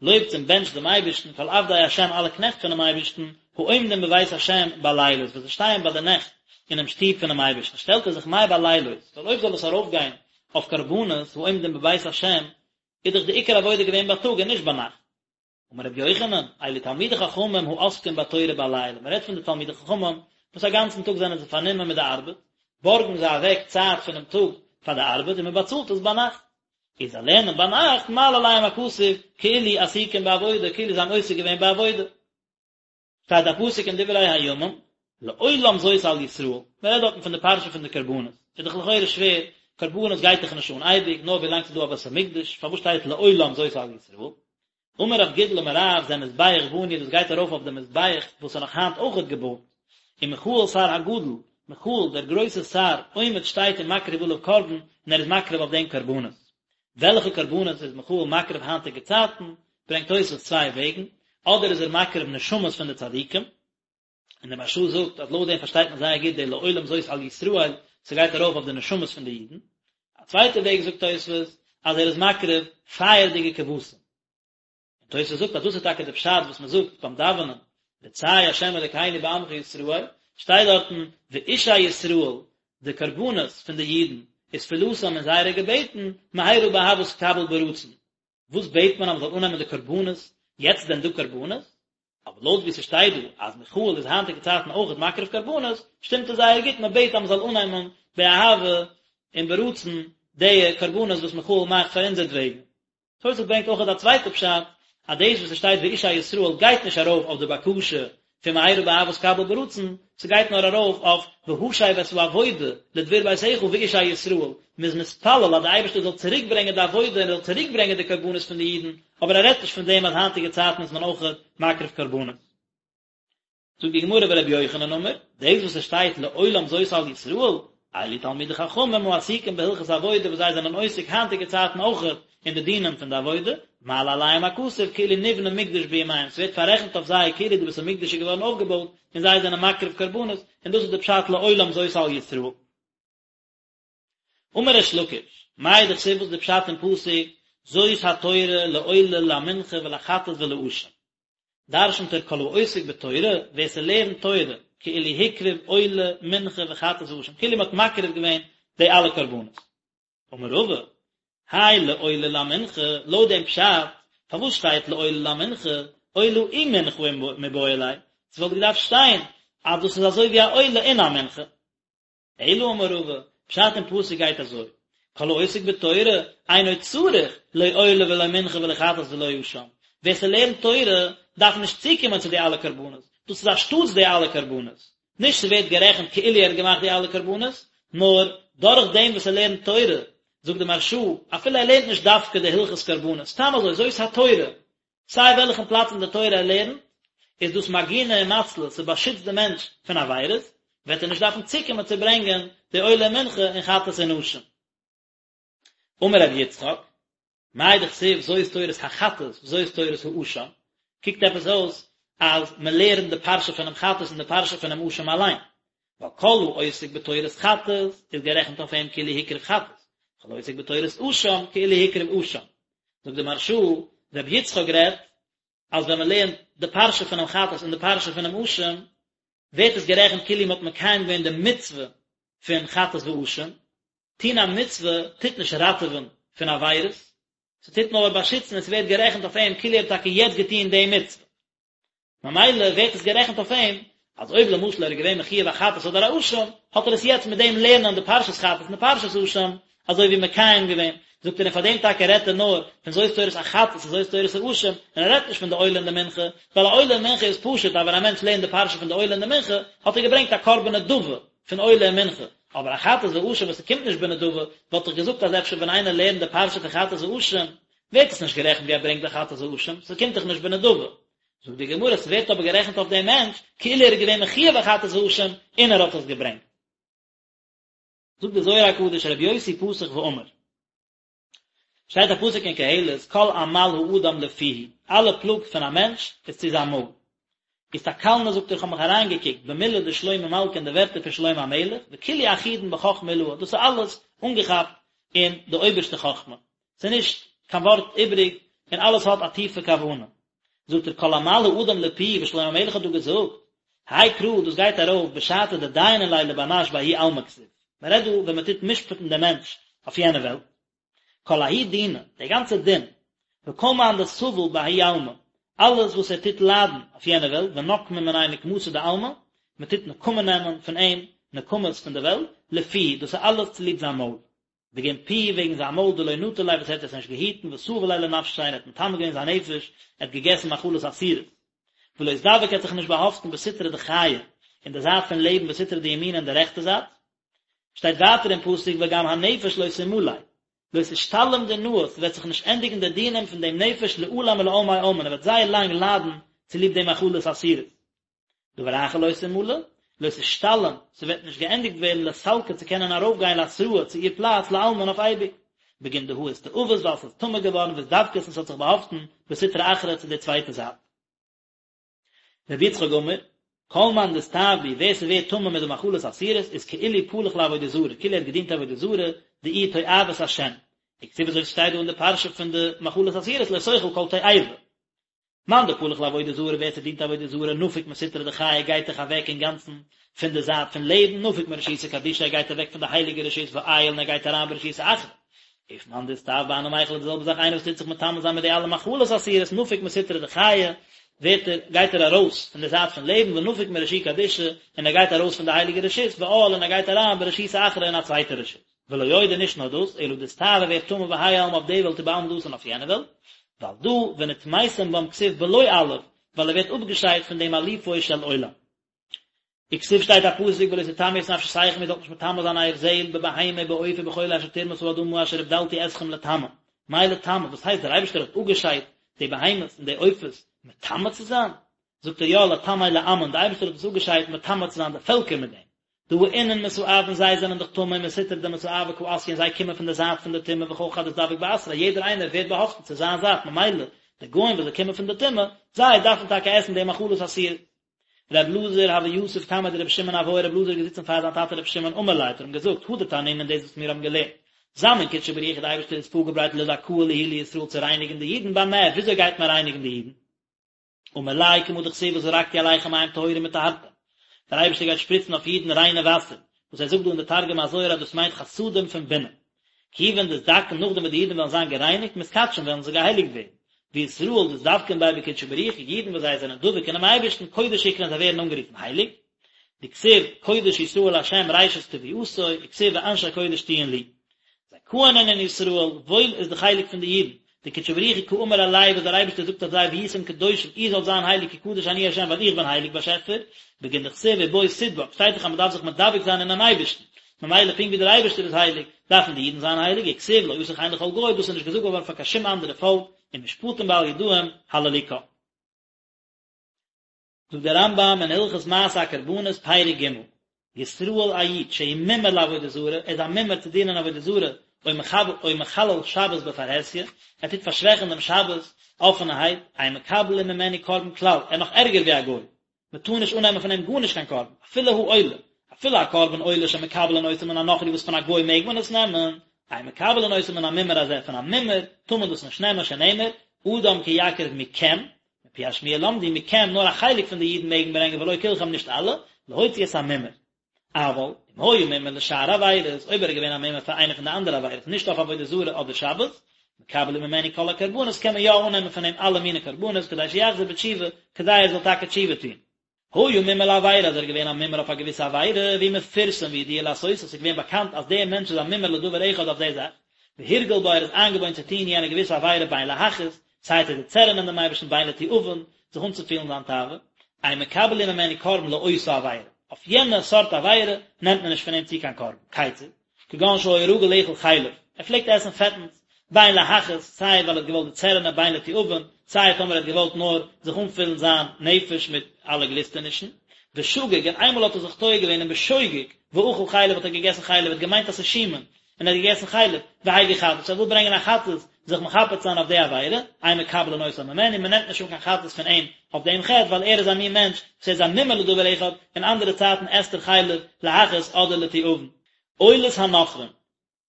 לויבטס און בענטשט דעם אייבערשטן, כל עבדי השם אלע קנעכט פונעם אייבערשטן, העומדים בבית השם בלילות, וואס זיי שטייען ביי די נעכט אינעם שטוב פונעם אייבערשטן, שטעלט ער זיך מאי בלילות, ווייל אויב זאל עס ארויפגיין אויף קרבנות, העומדים בבית השם, איז דאך די עיקר עבודה געווען בייטאג און נישט ביינאכט. אמר רבי יוחנן, אלו תלמידי חכמים העוסקים בתורה בלילה, מען רעדט פון די תלמידי חכמים וואס א גאנצן טאג זענען זיי פארנומען מיט די ארבעט, בארגן זיי אוועק צייט פונעם טאג פאר די ארבעט און מען באצאלט עס ביינאכט. איז זיי לערנען ביינאכט מעלה עליהם הכתוב כאילו עסוקים בעבודה, כאילו זיי האבן עוסק געווען בעבודה. שטייט א פסוק אין דברי הימים, לעולם זאת על ישראל, מען רעדט דארטן פון די פרשה פון די קרבנות, איז דאך לכאורה שווער, קרבנות גייט דאך נישט אן אייביג, נאר ווילאנג ס'איז דא א בית המקדש, פארוואס שטייט לעולם זאת על ישראל? אמר רב גידל אמר רב, זה מזבח בנוי, דאס גייט ארויף אויף די מזבח וואס איז נאך היינט אויכעט געבויט, ומיכאל שר הגדול, מיכאל דער גרויסער שר, עומד שטייט ומקריב עליו קרבן, און ער איז מקריב אויף דעם קרבנות. וועלכע קרבנות איז מיכאל מקריב היינטיגע צייטן, ברענגט תוספות צוויי וועגן, אדער איז ער מקריב נשמות פון די צדיקים, און דער מהרש"א זאגט אז לויט דעם פארשטייט מען זייער גוט די לעולם זאת על ישראל, ס'גייט ארויף אויף די נשמות פון די אידן, א צווייטע וועג זאגט תוספות אז ער איז מקריב פייערדיגע כבשים. און תוספות זאגט אז דאס איז טאקע די פשט וואס מען זאגט ביים דאווענען רצה ה' אלקינו בעמך ישראל, שטייט דארטן ואישי ישראל, די קרבנות פון די אידן, ותפלתם און זייערע געבעטן, מהרה באהבה תקבל ברצון. וואס בעט מען אז מען זאל אננעמען די קרבנות, יעצט איז דען דא קרבנות? אבער לויט ווי ס'שטייט דא אז מיכאל איז היינטיגע צייטן אויכעט מקריב קרבנות, שטימט עס זייער גוט, מען בעט אז מען זאל אננעמען באהבה און ברצון די קרבנות וואס מיכאל מאכט פאר אונזערטוועגן. תוספות ברענגט אויכעט א צווייטע פשט, אז דאס וואס עס שטייט ואישי ישראל גייט נישט ארויף אויף די בקשה פון מהרה באהבה תקבל ברצון, ס'גייט נאר ארויף אויף והשב את העבודה לדביר ביתך ואישי ישראל, מ'איז מתפלל אז די אייבערשטער זאל צוריק ברענגען די עבודה און ער זאל צוריק ברענגען די קרבנות פון די אידן, אבער ער רעדט נישט פון דעם אז היינטיגע צייטן איז מען אויכעט מקריב קרבנות. זאגט די גמרא ורבי יוחנן אמר, דאס וואס עס שטייט לעולם זאת על ישראל, אלו תלמידי חכמים העסוקים בהלכות עבודה וואס זיי זענען עוסק היינטיגע צייטן אויכעט אין די דינים פון די עבודה, מעלה עליהם הכתוב כאילו נבנה מקדש בימיהם, ס'ווערט פאררעכנט אויף זיי כאילו די בית המקדש איז געווארן אויפגעבויט און זיי זענען מקריב קרבנות, און דאס איז די פשט לעולם זאת על ישראל. אמר ריש לקיש, מאי דכתיב וואס איז די פשט אין פסוק זאת התורה לעולה למנחה ולחטאת ולאשם? דרשנט ער כל העוסק בתורה, ווער ס'לערנט תורה, כאילו הקריב עולה, מנחה וחטאת ואשם, כאילו מ'האט מקריב געווען די אלע קרבנות. אמר רבא, האי לעולה למנחה, לויט דעם פשט, פארוואס שטייט לעולה למנחה, עולה ומנחה מיבעי ליה, ס'וואלט געדארפט שטיין אז דאס איז אזוי ווי א עולה און א מנחה. אלא אמר רבא, פשט אין פסוק גייט אזוי, כל העוסק בתורה אינו צריך לא עולה ולא מנחה ולא חטאת ולא אשם, ווער ס'לערנט תורה דארף נישט צוקומען צו די אלע קרבנות, דאס איז אנשטאטס די אלע קרבנות, נישט ס'ווערט גערעכנט כאילו ער האט געמאכט די אלע קרבנות, נאר דורך דעם וואס ער לערנט תורה, זאגט די מהרש"א, אפילו ער לערנט נישט דווקא די הלכות קרבנות, סתם אזוי, זאת התורה, סיי וועלכן פלאץ אין די תורה ער לערנט, איז דאס מגינא ומצלא, ס'באשיצט די מענטש פון עבירות, וועט ער נישט דארפן צוקומען צו ברענגען די עולה מנחה און חטאת און אשם. אמר רבי יצחק, מאי דכתיב זאת תורת החטאת וזאת תורת האשם, קוקט עפעס אויס אז מען לערנט די פרשה פונעם חטאת און די פרשה פונעם אשם אליין, ווייל כל העוסק בתורת חטאת איז גערעכנט אויף אים כאילו הקריב חטאת, כל העוסק בתורת אשם כאילו הקריב אשם. זאגט די מהרש"א, רבי יצחק רעדט אז ווען מען לערנט די פרשה פונעם חטאת און די פרשה פונעם אשם, ווערט עס גערעכנט כאילו מען האט מקיים געווען די מצוה פון חטאת ואשם, טון א מצוה טוט נישט ראטעווען פון עבירות, ס'טוט נאר באשיצן און ס'ווערט גערעכנט אויף אים כאילו ער האט טאקע יעצט געטון די מצוה. ממילא ווערט עס גערעכנט אויף אים, אז אויב למשל ער איז געווען מחויב א חטאת אדער א אשם, האט ער עס יעצט מיט דעם לערנען די פרשת חטאת און די פרשת אשם, אזוי ווי מקיים געווען. זאגט ער און פאר דעם טאקע רעדט ער נאר פון זאת תורת החטאת און זאת תורת האשם, און ער רעדט נישט פון די עולה און די מנחה, ווייל א עולה און מנחה איז פשוט אז ווען א מענטש לערנט די פרשה פון די עולה און די מנחה, האט ער געברענגט א קרבן נדבה פון עולה און מנחה, אבער א חטאת ואשם וואס ס'קומט נישט בנדבה, וואלט איך געזאגט אז אפשר ווען איינער לערנט די פרשה פון חטאת ואשם, ווערט עס נישט גערעכנט ווי ער ברענגט די חטאת ואשם, ס'קומט דאך נישט בנדבה. זאגט די גמרא, ס'ווערט אבער גערעכנט אויף דעם מענטש כאילו ער איז געווען מחויב א חטאת ואשם און ער האט עס געברענגט. זאגט די זוהר הקדוש רבי יוסי פתח ואמר, שטייט א פסוק אין קהלת כל עמל האדם לפיהו, אלע פלאג פון א מענטש איז צו זיין מויל. אסתכלנא זאגט ער איך האב מיך אריינגעקוקט במילי דשלמה מלכא אין די ווערטער פון שלמה המלך, וכולהו אחידן בחכמה עילאה, דאס איז אלעס אנגעכאפט אין די אויבערשטע חכמה, ס'איז נישט קיין ווארט איבריג און אלעס האט א טיפע כוונה. זאגט ער כל עמל האדם לפיהו וואס שלמה המלך האט דא געזאגט, האי קרא דאס גייט ארויף בשעתא דדיינין ליה לבר נש בההוא עלמא כתיב, מען רעדט דא ווען מען טוט משפט'ן דעם מענטש אויף יענע וועלט, כל ההוא דינא, דער גאנצער דין, וכל מאן דסביל בההוא עלמא, אלעס וואס ער טוט ליידן אויף יענע וועלט, ונקמין מיניה נקמתא דעלמא, מען טוט נקמה נעמען פון אים נקמות פון די וועלט, לפיהו, דאס איז אלעס צוליב זיין מויל. בגין פיהו וועגן זיין מויל דלא נטר ליה וואס ער האט עס נישט געהיטן ותאב ליה לנפשיה און ער האט מטמא געווען זיין נפש, ער האט געגעסן מאכלות אסורות. ולא אתדבק ער האט זיך נישט באהאפטן בסטרא דחיי אין די זייט פון לעבן בסטרא דימינא אין די רעכטע זייט. שטייט ווייטער אין פסוק וגם הנפש לא תמלא, לא תשתלים דינהא, ס'וועט זיך נישט ענדיגן די דינים פון דעם נפש לעלם ולעלמי עלמין, ער וועט זייער לאנג ליידן צוליב די מאכלות אסורות. דבר אחר לא תמלא, לא תשתלם, ס'וועט נישט געענדיגט ווערן לסלקא צו קענען ארויפגיין לאתרהא צו איר פלאץ לעלמין אויף אייביג. בגין דהא אסתאבת ווייל ס'איז טמא געווארן ואתדבקת און ס'האט זיך באהאפטן בסטרא אחרא צו די צווייטע זייט. רבי יצחק אמר, כל מאן דאסתאב בהו ווער ס'ווערט טמא מיט די מאכלות אסורות איז כאילו פלח לעבודה זרה, כאילו ער האט געדינט עבודה זרה, דאיהי תועבת השם. וכתיב אזוי ווי ס'שטייט דא אין די פרשה פון די מאכלות אסורות לא תאכל כל תועבה. מאן דפלח לעבודה זרה ווער ס'דינט עבודה זרה נפיק מסטרא דחיי גייט דאך אוועק אינגאנצן פון די זייט פון לעבן נפיק מרשותא קדישא ער גייט אוועק פון די הייליגע רשות ועייל און ער גייט אריין ברשותא אחרא אוף מאן דאסתאב בהני מיכלא די זעלבע זאך איינער וואס טוט זיך מטמא זיין מיט די אלע מאכלות אסורות נפיק מסטרא דחיי ווערט ער גייט ער ארויס פון די זייט פון לעבן ונפיק מרשו קדישא און ער גייט ארויס פון די הייליגע רשות ועאל און ער גייט אריין ברשותא אחרא אין א צווייטע רשות. ולא עוד און נישט נאר דאס, אלא דאסתאב ער ווערט טמא בהאי עלמא אויף די וועלט ובעלמא דאתי און אויף יענע וועלט, ועל דא ונטמאתם בם כתיב בלא אלף, ווייל ער ווערט אפגעשיידט פון דעם אלופו של עולם. וכתיב שטייט א פסוק ולא תטמאו את נפשותיכם איר זאלט נישט מטמא זיין אייער זעהל בבהמה ובעוף ובכל אשר תרמש האדמה אשר הבדלתי אתכם לטמא. מאי לטמא? וואס הייסט דער אייבערשטער האט אפגעשיידט די בהמות און די עופות מטמא צו זיין? זאגט ער יא לטמא לעמין, דער אייבערשטער האט עס אפגעשיידט מטמא צו זיין די פעלקער מיט דעם. דהא אינון מסאבין זיי זענען דאך טמא ומסטרא דמסאבא קא אתיין זיי קומען פון די זייט פון די טומאה וכל חד אתדבק באתריה יעדער איינער ווערט באהאפטן צו זיין זייט ממילא די גוים וואס זיי קומען פון די טומאה זיי דארפן טאקע עסן די מאכלות אסורות. ר' אלעזר הוה יתיב קמיה דרבי שמעון אבוי ר' אלעזר איז געזיצן פאר זיין טאטע רבי שמעון אמר ליה האט ער אים געזאגט הא דתנינן דאס וואס מיר האבן געלערנט זמין קודשא בריך הוא די אייבערשטער איז פארגעברייט לדכאה להו לישראל צו רייניגן די אידן במה וויאזוי גייט מען רייניגן די אידן? אמר ליה כמה דכתיב וזרקתי עליכם מים טהורים וטהרתם, דער אייבערשטער גייט שפריצן אויף אידן ריינע וואסער, וואס ער זאגט דא אין די תרגום הזוהר אז דאס מיינט חסדים פון בינה. כיוון דאתדכאן נאכדעם וואס די אידן וועלן זיין גערייניגט מתקדשין וועלן זיי געהייליגט ווערן, וישראל דאתדבקין ביה בקודשא בריך הוא, אידן וואס זיי זענען דבוק אינעם אייבערשטן קודש אקרון זיי ווערן אנגערופן הייליג, דכתיב קודש ישראל לה' ראשית תבואתו, וכתיב ואנשי קודש תהיון לי. זכאין אינון ישראל, וואויל איז די חלק פון די אידן, דקודשא בריך הוא קאמר עלייהו וואס דער אייבערשטער זאגט אויף זיי והייתם קדושים איר זאלט זיין הייליג כי קדוש אני ה' ווייל איך בין הייליג באשעפער, בגין דכתיב ובו תדבק, שטייט דאך אז מען דארף זיך מדבק זיין אינעם אייבערשטן, ממילא פונקט ווי דער אייבערשטער איז הייליג, דארפן די אידן זיין הייליג, וכתיב לא עשה כן לכל גוי, דאס איז נישט געזאגט געווארן פאר קיין שום אנדערע פאלק, ומשפטים בל ידעים הללוקה. זאגט דער רמב"ם אין הלכות מעשה הקרבנות פרק ג', ישראל א איד שהוא מומר לעבודה זרה, ער איז א מומר צו דינען עבודה זרה, או מחב או מחלל שבת בפרהסיא, ער טוט פארשוועכן דעם שבת אפענערהייט, אין מקבלין ממנו קרבן כלל, ער איז נאך ערגער ווי א גוי, מען טאר נישט אננעמען פון אים גארנישט קיין קרבן, אפילו העולה, אפילו א קרבן עולה שמקבלין אותו מן הנכרי וואס פון א גוי מעג מען עס נעמען, אין מקבלין אותו מן המומר הזה, פון א מומר טאר מען דאס נישט נעמען שנאמר, אדם כי יקריב מכם, מפי השמועה למדו מכם נאר א חלק פון די אידן מעגן ברענגען ולא כולכם נישט אלע, להוציא את המומר. אבל, אם היה מומר לשאר עבירות, אויב ער איז געווען א מומר פאר איינע פון די אנדערע עבירות, נישט אויף עבודה זרה אדער שבת, מקבלין ממנו כל הקרבנות קען מען יא אננעמען פון אים אלע מיני קרבנות כדי שיחזור בתשובה כדי ער זאל טאקע תשובה טון. היה מומר לעבירה אז ער איז געווען א מומר אויף א געוויסע עבירה והוא מפורסם וידוע לעשותה ס'איז געווען באקאנט אז דער מענטש איז א מומר לדבר אחד אויף די זאך והורגל בה ער איז איינגעוואוינט צו טון יענע געוויסע עבירה בין להכעיס סיי צו דערצערענען דעם אייבערשטן בין לתיאבון זיך אנצופילן זיין תאווה אין מקבלין ממנו קרבן לאותה עבירה אויף יענע סארט עבירה נעמט מען נישט פון אים צו קיין קרבן כיצד כגון שהיה רגיל לאכול חלב, ער פלעגט עסן פעטנס, בין להכעיס, סיי ווייל ער האט געוואלט דערצערענען בין לתיאבון, סיי טאמער ער האט געוואלט נאר זיך אנפילן זיין נפש מיט אלע גליסטענישן, ושגג, און איינמאל האט ער זיך טועה געווען און בשוגג, ואכל חלב האט ער געגעסן חלב, ער האט געמיינט אז ס'איז שומן, און ער האט געגעסן חלב, והביא חטאת, ער וויל ברענגען א חטאת, זיך מכפר צו זיין אויף די עבירה, אין מקבלין אותה ממנו, מען נעמט נישט אן קיין חטאת פון אים אויף דעם חטא, ווייל ער איז א מין מענטש וואס ער איז א מומר לדבר אחד, אין אנדערע צייטן עסט ער חלב להכעיס אדער לתיאבון. עולת הנכרים,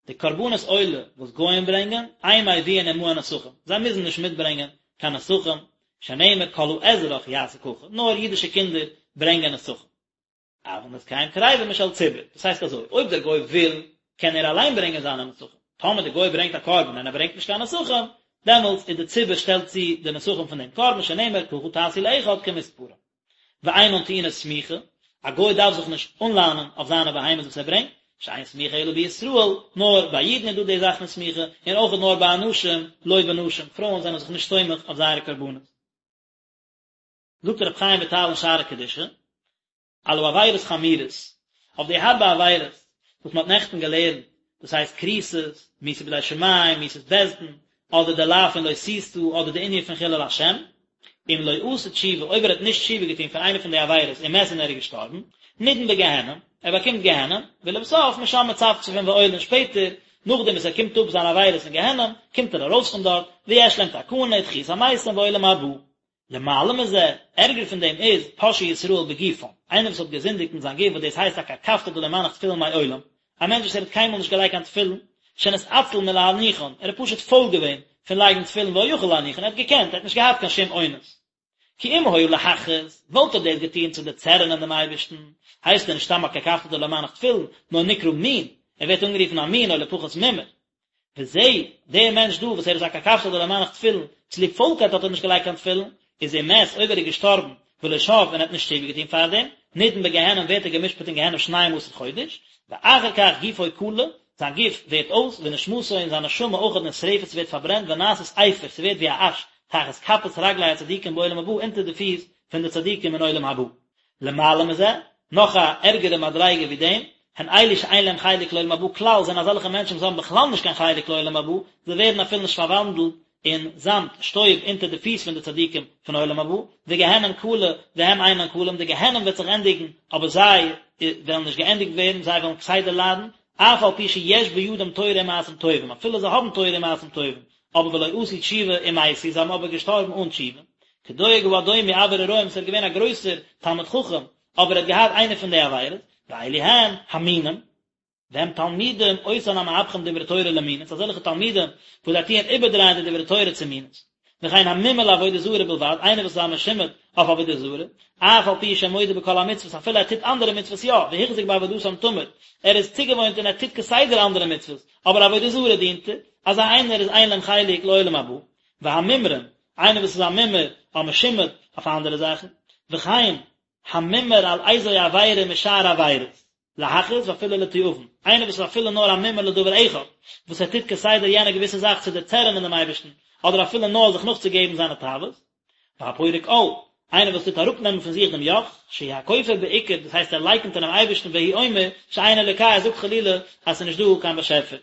די קרבנות עולה וואס גוים ברענגען, אין מביאין עמהן נסכים, זיי מוזן נישט מיטברענגען קיין נסכים, שנאמר כל האזרח יעשה ככה, נאר אידישע קינדער ברענגען נסכים. אבל נסכיהם קריבין משל ציבור, דאס הייסט אזוי, אויב דער גוי וויל, קען ער אליין ברענגען זיינע נסכים, טאמער דער גוי ברענגט א קרבן און ער ברענגט נישט קיין נסכים, דעמאלטס איז די ציבור שטעלט צו די נסכים פון דעם קרבן, שנאמר ככה תעשו לאחד כמספרם. ואינן טעונות סמיכה, א גוי דארף זיך נישט אנלאנען אויף זיינע בהמות וואס ער ברענגט, שאין סמיכה אלא בישראל, נאר ביי אידן איז דא די זאך פון סמיכה, און אויך נאר ביי אנשים, לא בנשים, פרויען זענען זיך נישט סומך אויף זייערע קרבנות. זאגט רבי חיים וויטאל אין שערי קדושה, על העבירות חמורות, אויף די הארבע עבירות וואס מען האט נעכטן געלערנט, דאס הייסט כריתות, מיתה בידי שמים, מיתת בית דין, אדער די לאו פון לא תשא, אדער די ענין פון חילול השם, אם לא עשה תשובה, אויב ער האט נישט תשובה געטון פון איינע פון די עבירות ומת און ער איז געשטארבן, נידון בגיהנום, ער באקומט גיהנום, ולבסוף משם מצפצפין ועולין שפעטער, נאכדעם וואס ער קומט אפ זיינע עבירות אין גיהנום, קומט ער ארויס פון דארט, ויש להם תקנה ותחיית המתים ועולם הבא. למעלה מזה, ערגער פון דעם איז, פושעי ישראל בגופם, איינער וואס האט געזינדיגט אין זיין גוף וואס דאס הייסט א קרקפתא דלא מנח תפילין מעולם, א מענטש וואס ער האט קיינמאל נישט געלייגט קיין תפילין, שנתעצל מלהניחן, ער איז פשוט פויל געווען פון לייגן תפילין והיה יכול להניחן, ער האט געקענט, ער האט נישט געהאט קיין שום אונס. כי אם היה להכעיס, וואלט ער דאס געטון צו דערצערענען דעם אייבערשטן, הייסט ער נישט סתם א קרקפתא דלא מנח תפילין, נאר נקרא מין, ער ווערט אנגערופן א מין או לפחות מומר. וזה, דער מענטש דא וואס ער איז א קרקפתא דלא מנח תפילין, צוליב פוילקייט האט ער נישט געלייגט קיין תפילין, איז אם מת, אויב ער איז געשטארבן, ולא שב און ער האט נישט תשובה געטון פארדעם, נידון בגיהנום ווערט ער גע'משפט אין גיהנום שנים עשר חודש, ואחר כך גופו כלה, זיין גוף ווערט אויס, ונשמתו און זיין נשמה אויכעט נשרפת ס'ווערט פארברענט ונעשית אפר ס'ווערט ווי א אש, תחת כפות רגלי הצדיקים בעולם הבא אונטער די פיס פון די צדיקים אין עולם הבא. למעלה מזה, נאך א ערגערע מדריגה ווי דעם, הן אלו שאין להם חלק לעולם הבא כלל, זענען אזעלכע מענטשן וואס האבן בכלל נישט קיין חלק לעולם הבא, זיי ווערן אפילו נישט פארוואנדלט אין זאמד, שטויב, אונטער די פיס פון די צדיקים פון עולם הבא, וגיהנום כלה, והם אינן כלים, די גיהנום וועט זיך ענדיגן, אבער זיי וועלן נישט געענדיגט ווערן, זיי וועלן כסדר ליידן, אף על פי שיש בידם תורה ומעשים טובים, אפילו זיי האבן תורה ומעשים טובים, אבער ולא עשו תשובה ומתו, זיי האבן אבער געשטארבן אן תשובה. כדואג האדומי אביר הרועים וואס ער איז געווען א גרויסער תלמיד חכם, אבער ער האט געהאט איינע פון די עבירות, ואלו הן המינים, והם תלמידים אותן המהפכים דברי תורה למינות, אזעלכע תלמידים וואס זיי טוען איבערדרייען די דברי תורה צו מינות. וכן המומר לעבודה זרה בלבד, איינער וואס איז א משומד אויף עבודה זרה, אף על פי שמודה בכל המצוות, אפילו ער טוט אנדערע מצוות יא, והוחזק בעבודתם תמיד, ער איז צוגעוואוינט און ער טוט כסדר אנדערע מצוות, אבער עבודה זרה דינט ער, אזא איינער איז אין להם חלק לעולם הבא. והמומרים, איינער וואס איז א מומר, א משומד אויף אנדערע זאכן, וכן המומר על איזו עבירה משאר עבירות, להכעיס ואפילו לתיאבון, איינער וואס איז אפילו נאר א מומר לדבר אחד, וואס ער טוט כסדר יענע געוויסע זאך צו דערצערענען דעם אייבערשטן, אדער אפילו נאר זיך נאכצוגעבן זיינע תאוות. והפורק עול, איינער וואס טוט אראפנעמען פון זיך דעם יאך, שהוא הכופר בעיקר, דאס הייסט ער לייקנט אינעם אייבערשטן והוא אומר שאין אלוקה, ער זאגט חלילה אז ס'איז נישט דא קיין באשעפער.